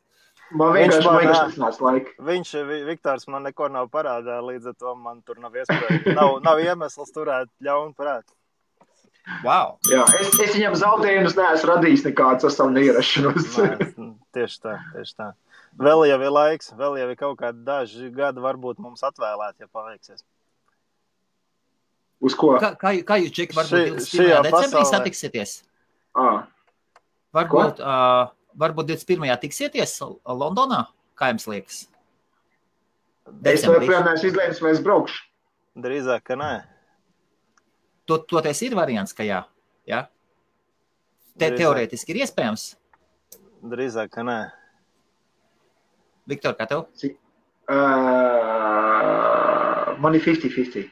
Speaker 3: Man vienkārši nesnāca laika.
Speaker 5: Viktors man neko nav parādā, līdz ar to man tur nav iespēja. Nav iemesls turēt ļaunu prātu.
Speaker 2: Wow.
Speaker 3: Jā, es viņam zaudējumus neesmu radījis nekāds ar savu neierašanos.
Speaker 5: Tieši tā. Vēl jau ir laiks, vēl jau ir kaut kādi daži gadi varbūt mums atvēlēt, ja paveiksies.
Speaker 3: Uz ko?
Speaker 2: Kā jūs, Džeki, varbūt 21. decembrī satiksieties? Varbūt 21. tiksieties Londonā? Kā jums liekas?
Speaker 3: Es joprojām neesmu izlēmis, vai es braukšu.
Speaker 5: Drīzāk, ka nē.
Speaker 2: Toties ir variants, ka jā? Ja? Teorētiski ir iespējams?
Speaker 5: Drīzāk, ka nē.
Speaker 2: Viktor, kā tev?
Speaker 3: Man ir 50-50.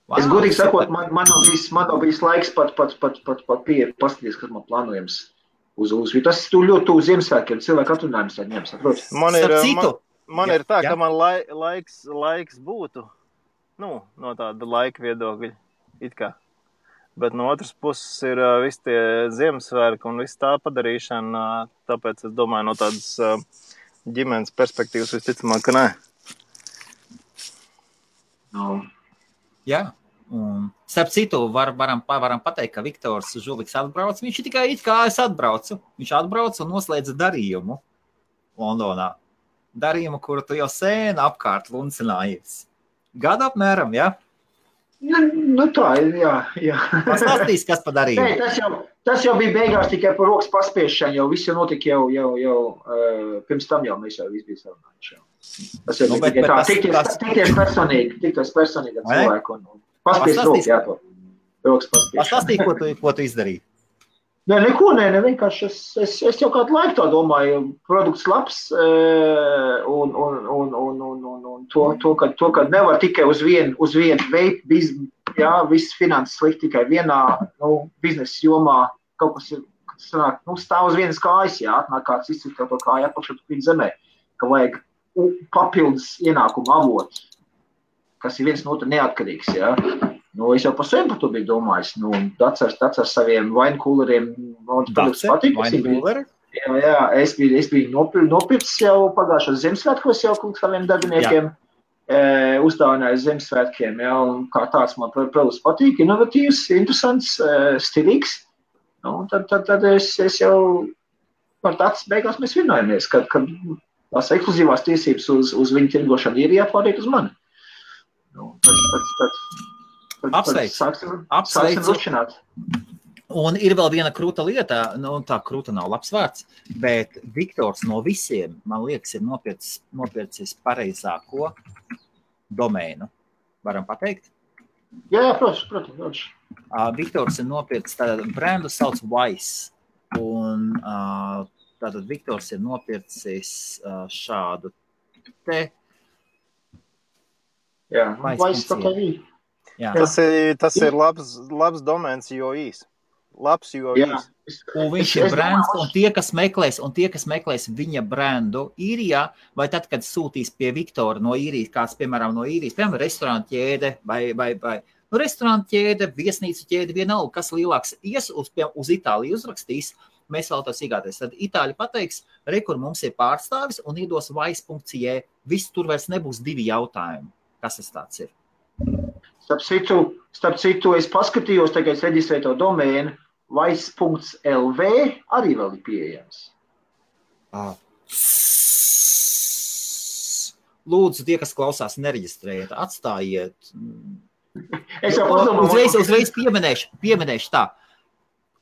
Speaker 3: Wow, es godīgi sakot, man nav bijis laiks pat paskatīties, kas man plānojams uz. Tas ir ļoti tuvu Ziemassvētkiem, cilvēku atvaļinājums tā ņems, atrodas.
Speaker 5: Man ir tā, ka man laiks būtu, no tāda laika viedokļa, it kā. Bet no otras puses ir visi tie Ziemassvētki un viss tā padarīšana, tāpēc es domāju, no tādas ģimenes perspektīvas visticamāk, ka nē.
Speaker 3: No.
Speaker 2: Jā, un starp citu varam pateikt, ka Viktors Žuliks atbrauc. Viņš ir tikai it kā es atbraucu. Viņš atbrauc un noslēdza darījumu Londonā. Darījumu, kuru tu jau sēni apkārt luncinājies. Gadu apmēram, jā?
Speaker 3: Tā ir, jā.
Speaker 2: Pastāstīs, kas pa darījumu?
Speaker 3: Nē, Tas jau bija beigās tikai par rokas paspiešanu, jau viss jau notika jau pirms tam jau mēs jau viss bija sarunājuši. Tas jau bija tikai tā, tikties personīgi ar cilvēku un paspies rokas, jā, to rokas paspiešanu.
Speaker 2: Pastāstīji, ko tu izdarīji?
Speaker 3: Nē, neko, vienkārši es jau kādu laiku tā domāju, produkts labs un to, ka nevar tikai uz vienu veidu, jā, viss finanses likt tikai vienā, biznesa jomā, kaut kas ir, sanāk, stāv uz vienas kājas, jā, atnāk kāds izcīt to kāju atpakšot pīt zemē, ka vajag papildus ienākumu avotu, kas ir viens no otra neatkarīgs, jā. Es jau par sevi par to biju domājis. Dats ar saviem vainkūleriem.
Speaker 2: Dats vainkūleri?
Speaker 3: Jā, es biju nopircis jau pagājušos Ziemassvētkos jau saviem darbiniekiem. Uzdāvināju Ziemassvētkiem, jā, un kā tāds man produkts patīk, inovatīvs, interesants, stilīgs. Tad es jau par tāds beigās mēs vienojamies, kad tās ekskluzīvās tiesības uz viņu tirgošanu ir jāpārīt uz mani.
Speaker 2: Apsveicu. Un ir vēl viena krūta lieta, tā krūta nav labs vārds, bet Viktors no visiem, man liekas, ir nopircis pareizāko domēnu. Varam pateikt?
Speaker 3: Jā, protams.
Speaker 2: Viktors ir nopircis, tātad brendu sauc Wise, un tātad Viktors ir nopircis šādu te.
Speaker 3: Jā, Wise tā kā vīja.
Speaker 2: Jā.
Speaker 5: Tas ir labs domēns, jo īs. Labs, jo īs.
Speaker 2: Un viņš ir brands, un tie, kas meklēs viņa brandu īrijā, vai tad, kad sūtīs pie Viktora no īrijas, kāds, piemēram, no īrijas, piemēram, restorāna ķēde, vai restorāna ķēde, viesnīcu ķēde, vienalga, kas lielāks ies uz Itāliju uzrakstīs, mēs vēl tos iegāties. Tad Itāļi pateiks, kur mums ir pārstāvis, un iedos wise.cie, viss tur vairs nebūs 2 jautājumi. Kas tas tāds ir?
Speaker 3: Starp citu, es paskatījos, tagad es reģistrēju to domēnu, wise.lv arī vēl ir pieejams.
Speaker 2: Lūdzu, tie, kas klausās, nereģistrējiet, atstājiet.
Speaker 3: Es jau padomāju.
Speaker 2: Uzreiz pieminēšu tā.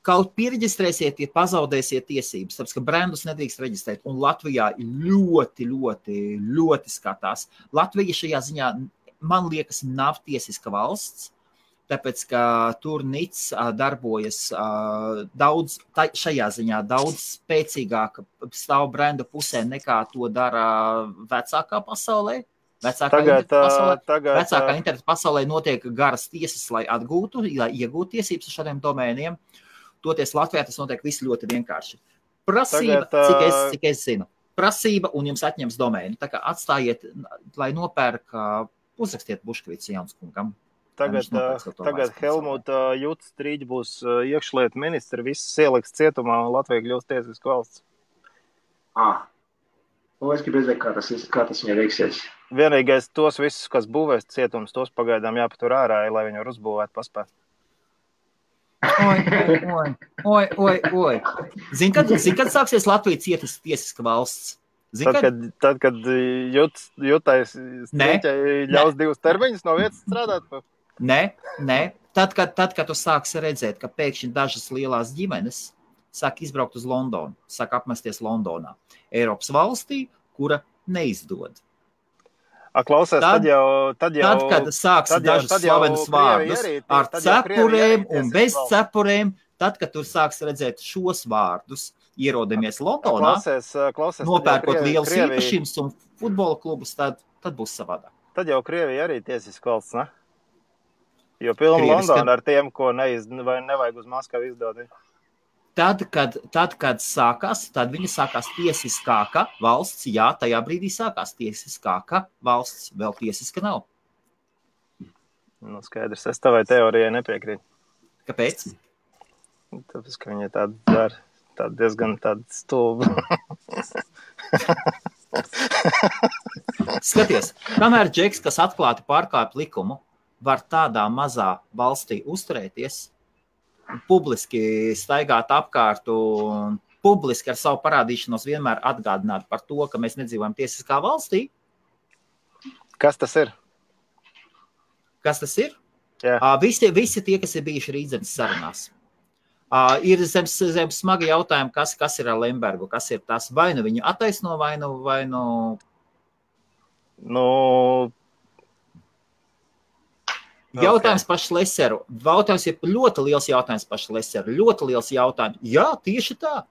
Speaker 2: Kaut piereģistrēsiet, ja pazaudēsiet tiesības, tāpēc, ka brandus nedrīkst reģistrēt, un Latvijā ļoti, ļoti, ļoti skatās. Latvija šajā ziņā, man liekas, nav tiesiska valsts, tāpēc, ka tur NIC darbojas šajā ziņā daudz spēcīgāk stāv brendu pusē, nekā to dara vecākā pasaulē. Vecākā interneta pasaulē notiek garas tiesas, lai iegūtu tiesības ar šādiem domēniem. Toties Latvijā tas notiek viss ļoti vienkārši. Prasība, cik es zinu. Prasība un jums atņems domēnu. Tā kā atstājiet, lai nopērk, uzrakstiet Buškvīts Jaunskungam.
Speaker 5: Tagad Helmuta Juts Strīģi būs iekšlietu ministri, viss ieliks cietumā un Latvija kļūst tiesisku valsts.
Speaker 3: Es gribu redzēt, kā tas viņai veiksies.
Speaker 5: Vienīgais tos visus, kas būvēs cietums, tos pagaidām jāpatur ārā, lai viņi var uzbūvēt paspēt.
Speaker 2: Oi. Zini, kad sāksies Latvija tiesiska valsts?
Speaker 5: Tad, kad Jutais Strīķai ļaus 2 termiņus no vietas strādāt?
Speaker 2: Nē. Tad, kad tu sāksi redzēt, ka pēkšņi dažas lielās ģimenes sāk izbraukt uz Londonu, sāk apmesties Londonā, Eiropas valstī, kura neizdod.
Speaker 5: Klausies, tad,
Speaker 2: kad sāks dažas slavenas vārdus ar cepurēm un bez cepurēm, tad, kad tu sāks redzēt šos vārdus, ierodamies Londonā, nopērkot lielus īpašības un futbola klubus, tad būs savādāk.
Speaker 5: Tad jau Krievija arī tiesiska valsts, ne? Jo pilna Londona ar tiem, ko nevajag uz Maskavu izdot.
Speaker 2: Tad, kad sākās, tad viņa sākās tiesiskāka valsts, jā, tajā brīdī sākās tiesiskāka valsts, vēl tiesiska nav.
Speaker 5: Skaidrs, es tavai teorijai nepiekrītu.
Speaker 2: Kāpēc?
Speaker 5: Tāpēc, ka viņa tāda diezgan stulba.
Speaker 2: Skaties, kamēr džeks, kas atklāti pārkāpj likumu, var tādā mazā valstī uzturēties, publiski staigāt apkārt un publiski ar savu parādīšanos vienmēr atgādināt par to, ka mēs nedzīvojam tiesiskā valstī.
Speaker 5: Kas tas ir?
Speaker 2: Kas tas ir?
Speaker 5: Jā.
Speaker 2: Visi tie, kas ir bijuši Rīdzemes sarunās. Ir zem smagi jautājumi, kas ir ar Lembergu, kas ir tas, vai nu viņu attaisno, vai nu...
Speaker 5: Nu...
Speaker 2: Jautājums par Šleseru. Jautājums ir ļoti liels jautājums par Šleseru. Ļoti liels jautājums. Jā, tieši tā.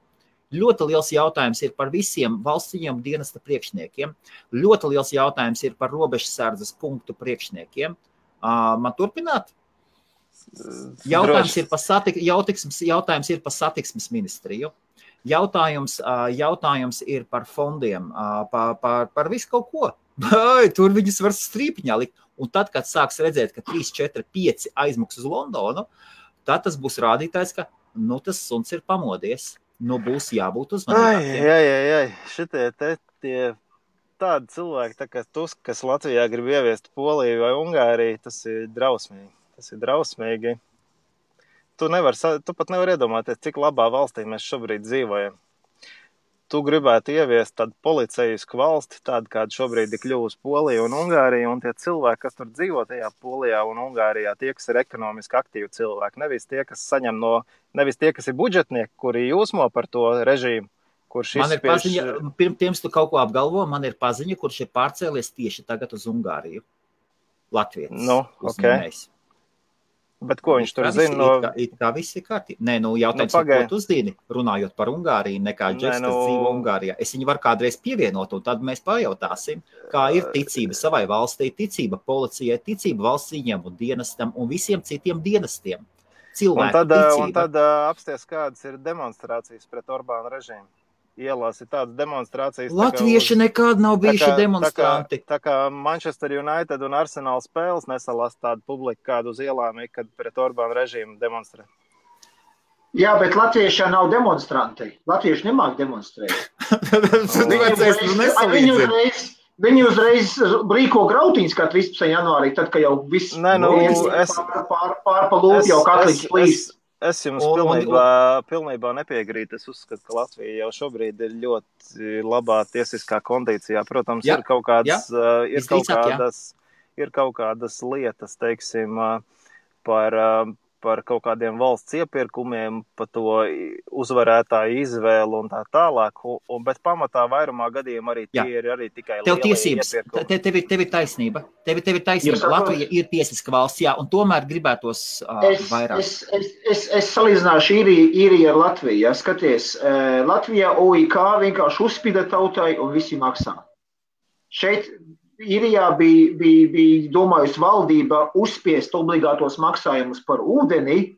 Speaker 2: Ļoti liels jautājums ir par visiem valsts ieņēmumu dienesta priekšniekiem. Ļoti liels jautājums ir par robežsardzes punktu priekšniekiem. Man turpināt? Jautājums ir par satiksmes ministriju. Jautājums ir par fondiem, par visu kaut ko. Tur viņus var strīpiņā likt. Un tad, kad sāks redzēt, ka 3, 4, 5 aizmuks uz Londonu, tad tas būs rādītājs, ka tas suns ir pamodies. Būs jābūt uzmanīgākiem.
Speaker 5: Šitie tie tādi cilvēki, tā kā Tusk, kas Latvijā grib ieviest Poliju vai Ungāriju, tas ir drausmīgi. Tu pat nevar iedomāties, cik labā valstī mēs šobrīd dzīvojam. Tu gribētu ieviest tādu policijisku valsti, tādu, kāda šobrīd ir kļuvusi Polija un Ungārija, un tie cilvēki, kas tur dzīvo tajā Polijā un Ungārijā, tie, kas ir ekonomiski aktīvi cilvēki, nevis tie, kas ir budžetnieki, kuri jūsmo par to režīmu, kurš
Speaker 2: Man ir paziņa, pirms tu kaut ko apgalvo, man ir paziņa, kurš ir pārcēlies tieši tagad uz Ungāriju. Latvijas uzņēmējs.
Speaker 5: Bet ko viņš tur zina?
Speaker 2: It kā viss ir kārtībā. Nē, jautājums ir, ko tu uzdīni, runājot par Ungāriju, nekā Džeks, kas dzīvo Ungārijā. Es viņu varu kādreiz pievienot, un tad mēs pajautāsim, kā ir ticība savai valstī, ticība policijai, ticība valsts ieņēmumu dienestam un visiem citiem dienestiem. Cilvēku ticība.
Speaker 5: Un tad apsties, kādas ir demonstrācijas pret Orbāna režīmu. Ielās ir tādas demonstrācijas.
Speaker 2: Latvieši nekad nav bijuši demonstranti.
Speaker 5: Tā kā Manchester United un Arsenal spēles nesalās tādu publiku, kādu uz ielām, kad pret Orbāna režīmu demonstrē.
Speaker 3: Jā, bet latvieši nav demonstranti. Latvieši nemāk demonstrēt. Viņi uzreiz rīko grautiņas kā 13. janvārī, tad, ka jau viss pārpa lūp jau katlīgs plīs.
Speaker 5: Es jums pilnībā nepiegrītu. Es uzskatu, ka Latvija jau šobrīd ir ļoti labā tiesiskā kondīcijā. Protams, ir kaut kādas lietas, teiksim, par kaut kādiem valsts iepirkumiem, par to uzvarētāju izvēlu un tā tālāk, bet pamatā vairumā gadījumā arī tie ir arī tikai lielie iepirkumi.
Speaker 2: Tev ir taisnība. Tev ir taisnība. Latvija ir tiesiska valsts, jā, un tomēr gribētos vairāk.
Speaker 3: Es salīdzināšu īriju ar Latviju. Ja? Skaties, Latvijā OIK vienkārši uzspida tautai un visi maksā. Šeit Īrijā bija domājusi valdība uzspiest obligātos maksājumus par ūdeni.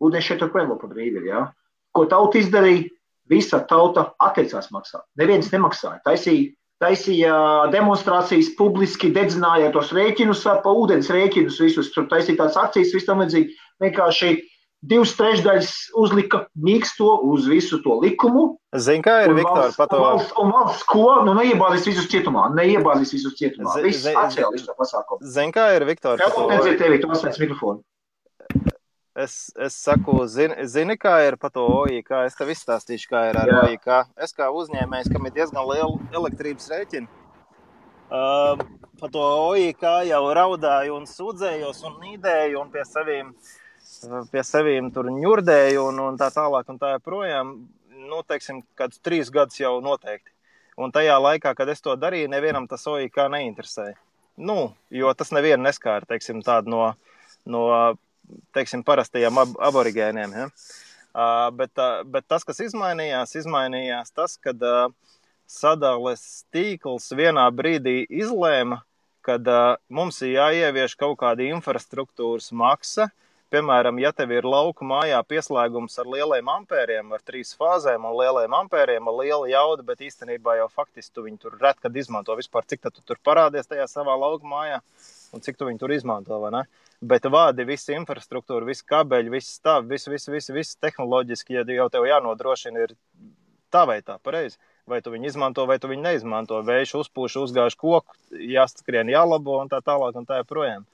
Speaker 3: Ūdeni šeit joprojām par brīvi, ja? Ko tauta izdarīja? Visa tauta atteicās maksāt. Neviens nemaksāja. Taisīja demonstrācijas publiski, dedzināja tos rēķinus, pa ūdens rēķinus visus. Tur taisīja tādas akcijas, viss tam vajadzīgi. Vienkārši 2/3 uzlika mīksto uz visu to likumu.
Speaker 5: Zini, kā ir, Viktor, par to?
Speaker 3: Un valsts ko? Neiebāzīs visus cietumā. Viss atcēla visu to pasākumu.
Speaker 5: Zini, kā ir, Viktor, par to?
Speaker 3: Nedzird tevi, tu atslēdz mikrofonu.
Speaker 5: Es saku, zini, kā ir par to OIK? Es tev izstāstīšu, kā ir ar OIK. Es kā uzņēmējs, kam ir diezgan liela elektrības rēķina, par to OIK jau raudāju un sūdzējos un nīdēju un pie sevīm tur ņurdēju un tā tālāk un tā joprojām, teiksim, kādus 3 gadus jau noteikti. Un tajā laikā, kad es to darīju, nevienam tas OIK neinteresēja. Jo tas nevienu neskāra, teiksim, tādu no teiksim, parastajiem aborigēniem. Ja? Bet tas, kas izmainījās tas, kad sadales tīkls vienā brīdī izlēma, kad mums ir jāievieš kaut kāda infrastruktūras maksa. Piemēram, ja tev ir lauku mājā pieslēgums ar lieliem ampēriem, ar 3 fāzēm un lieliem ampēriem, ar lielu jaudu, bet īstenībā jau faktiski tu viņu tur ret, kad izmanto vispār, cik tad tu tur parādies tajā savā lauku mājā un cik tu viņu tur izmanto, vai ne? Bet vādi visi infrastruktūra, visi kabeļi, visi stāvi, visi tehnoloģiski, ja jau tev jānodrošina ir tā vai tā, pareizi. Vai tu viņu izmanto, vai tu viņu neizmanto. Vējš uzpūš, uzgāž koku, jāskrien, jālabo un tā tālāk un tā joprojām.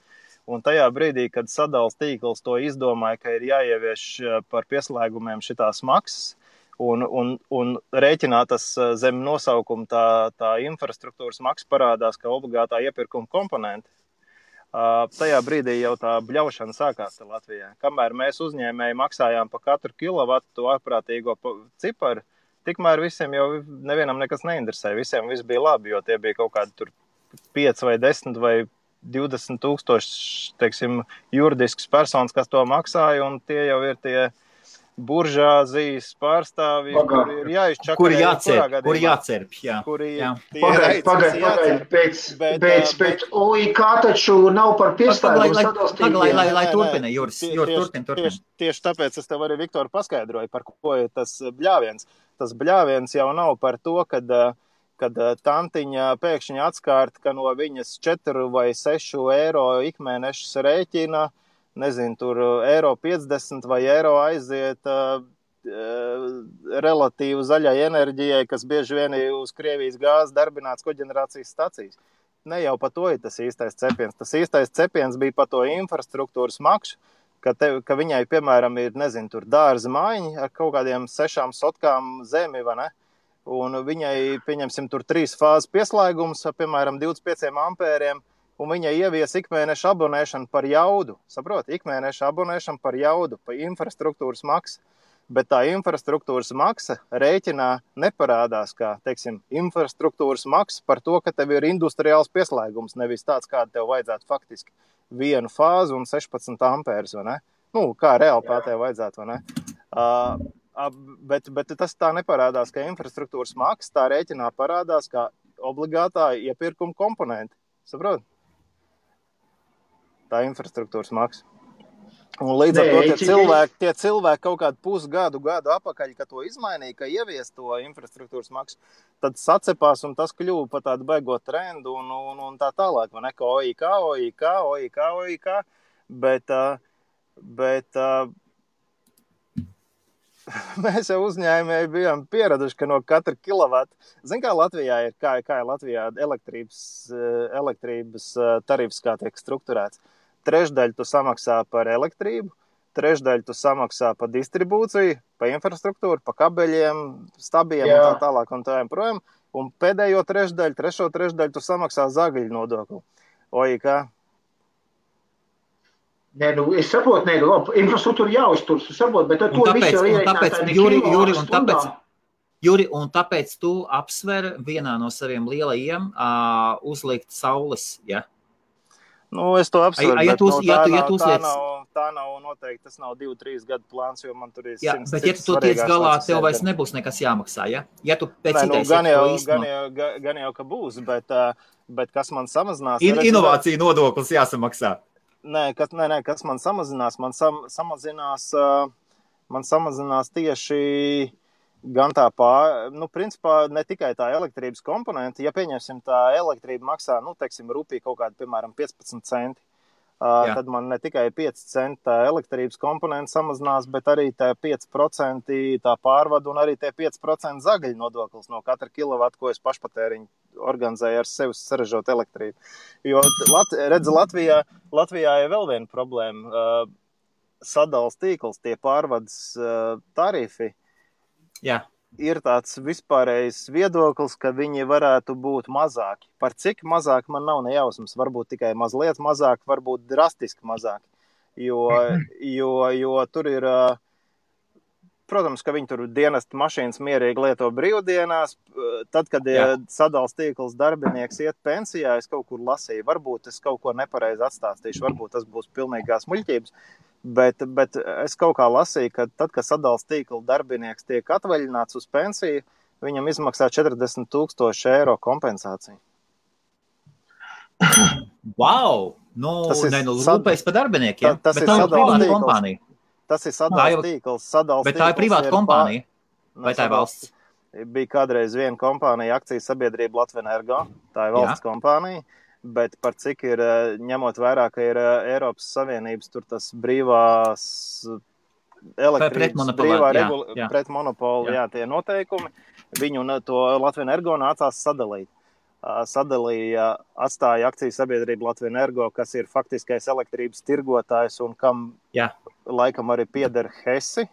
Speaker 5: Un tajā brīdī, kad sadales tīkls to izdomāja, ka ir jāievieš par pieslēgumiem šitās maksas un rēķinātas zem nosaukuma tā infrastruktūras maksa parādās kā obligātā iepirkuma komponente, Tajā brīdī jau tā bļaušana sākās Latvijā. Kamēr mēs uzņēmēji maksājām par katru kilovatu to ārprātīgo ciparu, tikmēr visiem jau nevienam nekas neinteresē. Visiem viss bija labi, jo tie bija kaut kādi tur 5 vai 10 vai 20 tūkstoši, teiksim, juridiskas personas, kas to maksāja, un tie jau ir tie buržāzijas pārstāvji, kuri ir jāizčakarē.
Speaker 2: Kuri jācerp, jā.
Speaker 3: Pagaid, pēc OIK taču nav par piestājumu sadalstību.
Speaker 2: Lai turpina, Juris, turpina.
Speaker 5: Tieši tāpēc es tev arī, Viktor, paskaidroju, par ko ir tas bļāviens. Tas bļāviens jau nav par to, kad tantiņa pēkšņi atskārt, ka no viņas 4 vai 6 eiro ikmēnešas rēķina, nezinu, tur eiro 50 vai eiro aiziet relatīvi zaļai enerģijai, kas bieži vien ir uz Krievijas gāzes darbināts koģenerācijas stacijas. Ne jau par to ir tas īstais cepiens. Tas īstais cepiens bija par to infrastruktūras maksu, ka viņai, piemēram, ir, nezinu, tur dārza mājiņi ar kaut kādiem 6 sotkām zemi, vai ne? Un viņai, pieņemsim, tur 3 fāzes pieslēgums, piemēram, 25 ampēriem, un viņa ievies ikmēneša abonēšanu par jaudu. Saproti, ikmēneša abonēšanu par jaudu, par infrastruktūras maksu. Bet tā infrastruktūras maksa rēķinā neparādās kā, teiksim, infrastruktūras maksa par to, ka tev ir industriāls pieslēgums, nevis tāds, kāda tev vajadzētu faktiski 1 fāzi un 16 ampērs, vai ne? Nu, kā reāli tev vajadzētu, vai ne? Bet tas tā neparādās, ka infrastruktūras maksa tā rēķinā parādās kā obligātā iepirkuma komponenti. Saprot? Tā infrastruktūras maksa. Un līdz ar to tie cilvēki kaut kādu pusgadu apakaļ, ka to izmainīja, ka ievies to infrastruktūras maksu, tad sacepās un tas kļuva par tādu baigot trendu un tā tālāk, vai ne, ka OIK, bet mēs jau uzņēmēji bijām pieraduši, ka no katra kilovata, zin kā Latvijā ir, kā ir Latvijā elektrības tarifs, kā tiek strukturēts. 1/3 tu samaksā par elektrību, 1/3 tu samaksā par distribūciju, par infrastruktūru, par kabeļiem, stabiem un tā tālāk un tā projām, un pēdējo 3/3 tu samaksā zagļu nodokli. OIK.
Speaker 3: Nē, es saprotu, labi, infrastruktūra jāuztur, saprotu, bet to visu ir ierēķināts.
Speaker 2: Juri, un tāpēc tu apsver vienā no saviem lielajiem uzlikt saules, ja?
Speaker 5: Nu, es to apsveru, bet tā nav noteikti, tas nav 2-3 gadu plāns, jo man tur ir 100
Speaker 2: jā, bet ja tu to tiec galā, tev vairs nebūs nekas jāmaksā, ja? Ja tu pēc idejas
Speaker 5: gan jau, ka būs, bet kas man samazinās...
Speaker 2: Inovācija nodoklis jāsamaksā.
Speaker 5: Nē, kas man samazinās? Man samazinās tieši gan tā principā ne tikai tā elektrības komponenta, ja pieņemsim tā elektrība maksā, teiksim, rupī kaut kādi, piemēram, 15 centi, tad man ne tikai 5 centi tā elektrības komponenta samazinās, bet arī tā 5% tā pārvadu un arī tie 5% zagaļu nodoklis no katra kilovata, ko es pašpatēriņu organizēju ar sevi saražot elektrību. Jo, redzi, Latvijā ir vēl viena problēma. Sadals tīkls, tie pārvades tarifi,
Speaker 2: jā.
Speaker 5: Ir tāds vispārējs viedoklis, ka viņi varētu būt mazāki. Par cik mazāk man nav nejausmas, varbūt tikai mazliet mazāk, varbūt drastiski mazāk. Jo tur ir, protams, ka viņi tur dienesta mašīnas mierīgi lieto brīvdienās. Tad, kad sadals tīkls darbinieks iet pensijā, es kaut kur lasīju, varbūt es kaut ko nepareizi atstāstīšu, varbūt tas būs pilnīgās muļķības. Bet es kaut kā lasīju, ka tad, kad sadals tīkla darbinieks tiek atvaļināts uz pensiju, viņam izmaksā 40,000 eiro kompensāciju.
Speaker 2: Wow! Rūpējas par darbiniekiem. Bet tā ir privāta kompānija.
Speaker 5: Tas ir sadals tīkls.
Speaker 2: Bet tā ir privāta kompānija. Vai tā ir valsts?
Speaker 5: Bija kādreiz viena kompānija, akcijas sabiedrība Latvenergo. Tā ir valsts kompānija. Bet par cik ir, ņemot vērā, ka ir Eiropas Savienības tur tas brīvās elektrības, pretmonopoli, tie noteikumi, viņu to Latvenergo nācās sadalīt. Atstāja akcijas sabiedrība Latvenergo, kas ir faktiskais elektrības tirgotājs un kam laikam arī pieder Hesi,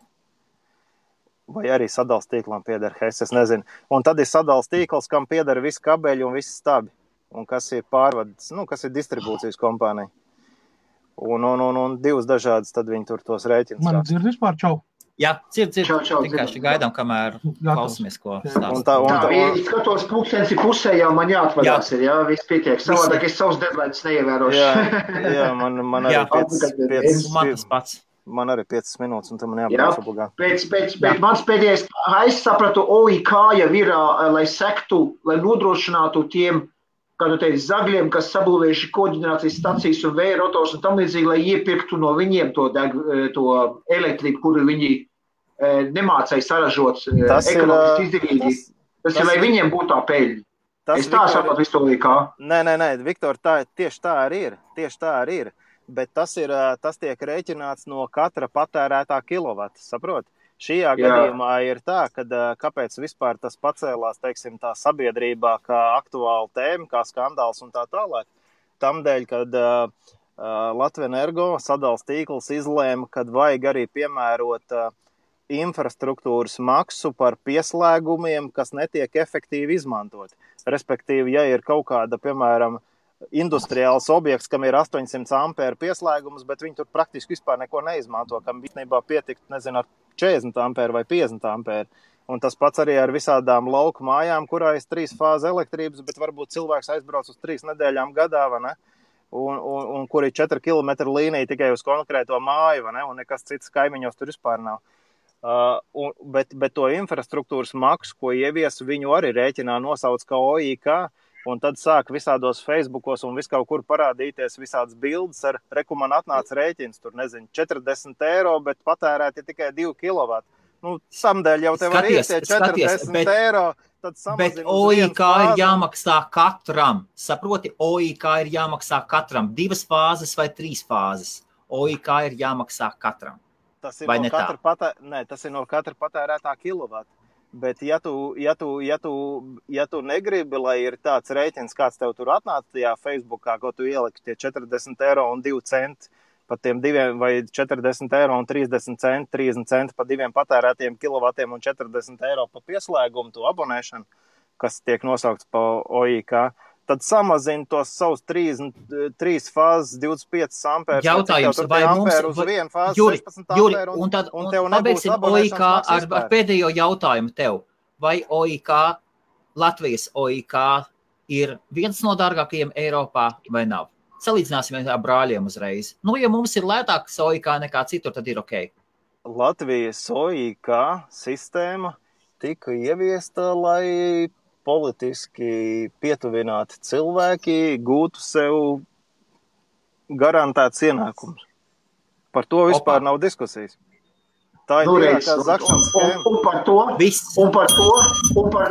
Speaker 5: vai arī sadals tīklam pieder Hesi, es nezinu. Un tad ir sadals tīkls, kam pieder visi kabeļi un visi stabi. Un kas ir pārvades, kas ir distribūcijas kompānija. un divas dažādas, tad viņi tur tos rēķinus.
Speaker 1: Man dzird vispār, čau.
Speaker 2: Jā, dzird.
Speaker 3: Vienkārši
Speaker 2: gaidām, kamēr klausamies, ko stāst.
Speaker 3: Skatos pulkstensi pusē, jau man jāatvadās ir, jā, viss pietiek. Savādāk es savus deadlines neievērošu.
Speaker 5: Jā, man arī 5
Speaker 2: pats.
Speaker 5: Man arī 5 minūtes, un tam man jābūt obligāti.
Speaker 3: Pēc mans pēdējais, es sapratu, OIK jau ir, lai sektu, lai nodrošinātu tiem, kā tu teici, zagļiem, kas sabūvējuši koģenerācijas stacijas un vēja rotors un tam līdzīgi, lai iepirktu no viņiem to elektrību, kuru viņi nemācēja saražot ekonomiski izdevīgi. Tas ir, lai viņiem būtu tā peļņa. Es tā sapratu visu OIK.
Speaker 5: Nē, Viktor, tieši tā arī ir. Bet tas tiek rēķināts no katra patērētā kilovata, saprot? Šajā gadījumā ir tā, ka kāpēc vispār tas pacēlās, teiksim, tā sabiedrībā kā aktuāla tēma, kā skandāls un tā tālāk. Tamdēļ, kad Latvenergo sadals tīkls izlēma, kad vajag arī piemērot infrastruktūras maksu par pieslēgumiem, kas netiek efektīvi izmantot. Respektīvi, ja ir kaut kāda, piemēram, industriāls objekts, kam ir 800 ampēru pieslēgums, bet viņi tur praktiski vispār neko neizmanto, kam īstenībā pietikt, nezinu, ar 40 ampēru vai 50 ampēru. Un tas pats arī ar visādām lauku mājām, kurā ir 3 fāzi elektrības, bet varbūt cilvēks aizbrauc uz 3 nedēļām gadā, vai ne? Un kur ir 4 kilometru līnija tikai uz konkrēto māju, vai ne? Un nekas cits kaimiņos tur vispār nav. Bet to infrastruktūras maksu, ko ievies, viņu arī rēķinā nosauc kā OIK, un tad sāk visādos Facebookos un vis kaut kur parādīties visādas bildes ar man atnāca rēķins, tur nezinu, 40 eiro, bet patērēti tikai 2 kilovati. Nu, samdēļ jau tev var iet 40 eiro, tad samazina.
Speaker 2: Bet OIK ir jāmaksā katram. Saproti, OIK ir jāmaksā katram. 2 fāzes vai 3 fāzes. OIK ir jāmaksā katram.
Speaker 5: Tas ir tas ir no katra patērētā kilovata. Bet ja tu negribi, lai ir tāds rēķins, kāds tev tur atnāca tajā Facebookā, ko tu ieliki tie 40 eiro un 2 centi pa tiem 2 vai 40 eiro un 30 centi pa 2 patērētiem kilovatiem un 40 eiro pa pieslēgumu, to abonēšanu, kas tiek nosaukts pa OIK, tad samazina tos savus 3 fāzes 25 ampērus.
Speaker 2: Jautājums, vai mums...
Speaker 5: Juri,
Speaker 2: un pabeigsim OIK ar pēdējo jautājumu tev. Vai OIK, Latvijas OIK ir viens no dārgākajiem Eiropā vai nav? Salīdzināsim ar brāļiem uzreiz. Nu, ja mums ir lētāks OIK nekā citur, tad ir ok.
Speaker 5: Latvijas OIK sistēma tika ieviesta, lai politiski pietuvināti cilvēki gūtu sev garantēts ienākums. Par to vispār nav diskusijas. Tā ir tīrākā zakšanas schēma.
Speaker 3: Un par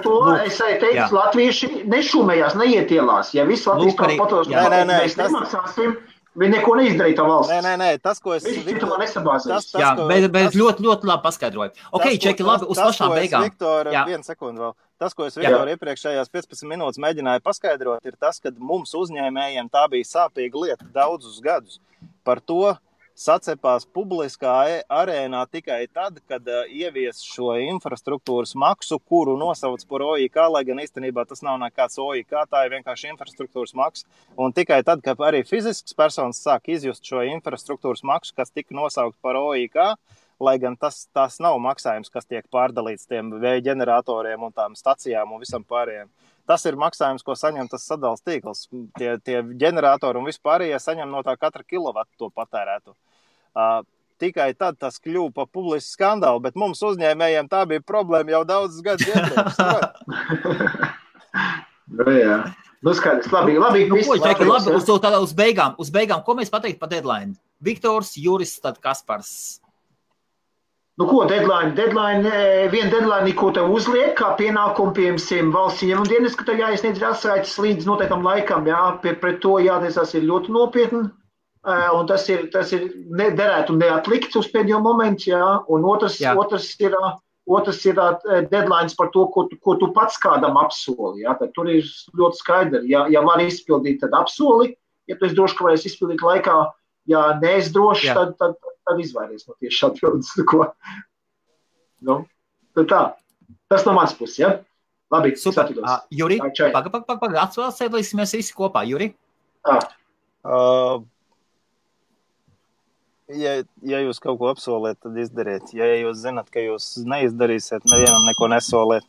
Speaker 3: to es teicu, latvieši nešumējās, neietielās. Ja viss Latvijas tā patos, mēs nemaksāsim, viņi neko neizdarīja tā valsts.
Speaker 5: Nē, tas, ko es...
Speaker 2: Bet ļoti labi paskaidroju. Ok, Čeki, labi, uz pašām beigām.
Speaker 5: Vienu sekundu vēl. Tas, ko es Viktor iepriekšējās 15 minūtes mēģināju paskaidrot, ir tas, ka mums uzņēmējiem tā bija sāpīga lieta daudzus gadus. Par to sacepās publiskā arēnā tikai tad, kad ievies šo infrastruktūras maksu, kuru nosauc par OIK, lai gan īstenībā tas nav nekāds OIK, tā ir vienkārši infrastruktūras maksa. Un tikai tad, kad arī fizisks personas sāk izjust šo infrastruktūras maksu, kas tika nosaukt par OIK, lai gan tas nav maksājums, kas tiek pārdalīts tiem vēja ģeneratoriem un tām stacijām un visam pārējiem. Tas ir maksājums, ko saņem tas sadals tīkls. Tie ģeneratori un vispārējie saņem no tā katra kilovatu to patērētu. Tikai tad tas kļuva pa publisku skandālu, bet mums uzņēmējiem tā bija problēma jau daudzus gadus iepriekš.
Speaker 3: Jā. Nu skaidrs, labi.
Speaker 2: Uz beigām, ko mēs pateikt par deadline? Viktors, Juris, tad Kaspars.
Speaker 3: Nu ko, deadline, viena deadline, ko tev uzliek, kā pienākumu, piemēram, valsts ieņēmuma dienas, ka tev jāiesniedz atsaites līdz noteiktam laikam, jā, pret to jātiesās ir ļoti nopietni, un tas ir derētu neatlikt uz pēdējo momentu, jā, un otrs ir deadlines par to, ko tu pats kādam apsoli, jā, tad tur ir ļoti skaidri, ja var izpildīt, tad apsoli, ja tu esi droši, ka varēs izpildīt laikā, ja neesi droši, tad izvairies no tieši atbildes. Nu, tad tā. Tas no mans puses, ja? Labi,
Speaker 2: super. Juri, atvēlēsimies visi kopā. Juri?
Speaker 5: Ja jūs kaut ko apsoliet, tad izdariet. Ja jūs zināt, ka jūs neizdarīsiet, nevienam neko nesoliet.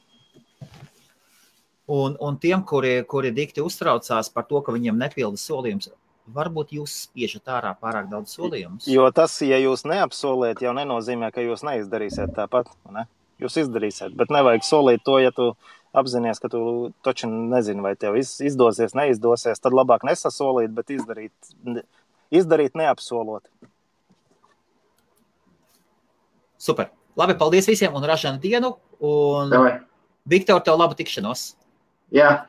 Speaker 2: Un tiem, kuri dikti uztraucās par to, ka viņiem nepilda solījums, varbūt jūs spiežat ārā pārāk daudz solījumus?
Speaker 5: Jo tas, ja jūs neapsoliet, jau nenozīmē, ka jūs neizdarīsiet tāpat. Ne? Jūs izdarīsiet, bet nevajag solīt to, ja tu apzinies, ka tu taču nezini, vai tev izdosies, neizdosies, tad labāk nesasolīt, bet izdarīt neapsolot.
Speaker 2: Super. Labi, paldies visiem un ražanu dienu. Un
Speaker 3: Davai.
Speaker 2: Viktor, tev labu tikšanos.
Speaker 3: Jā.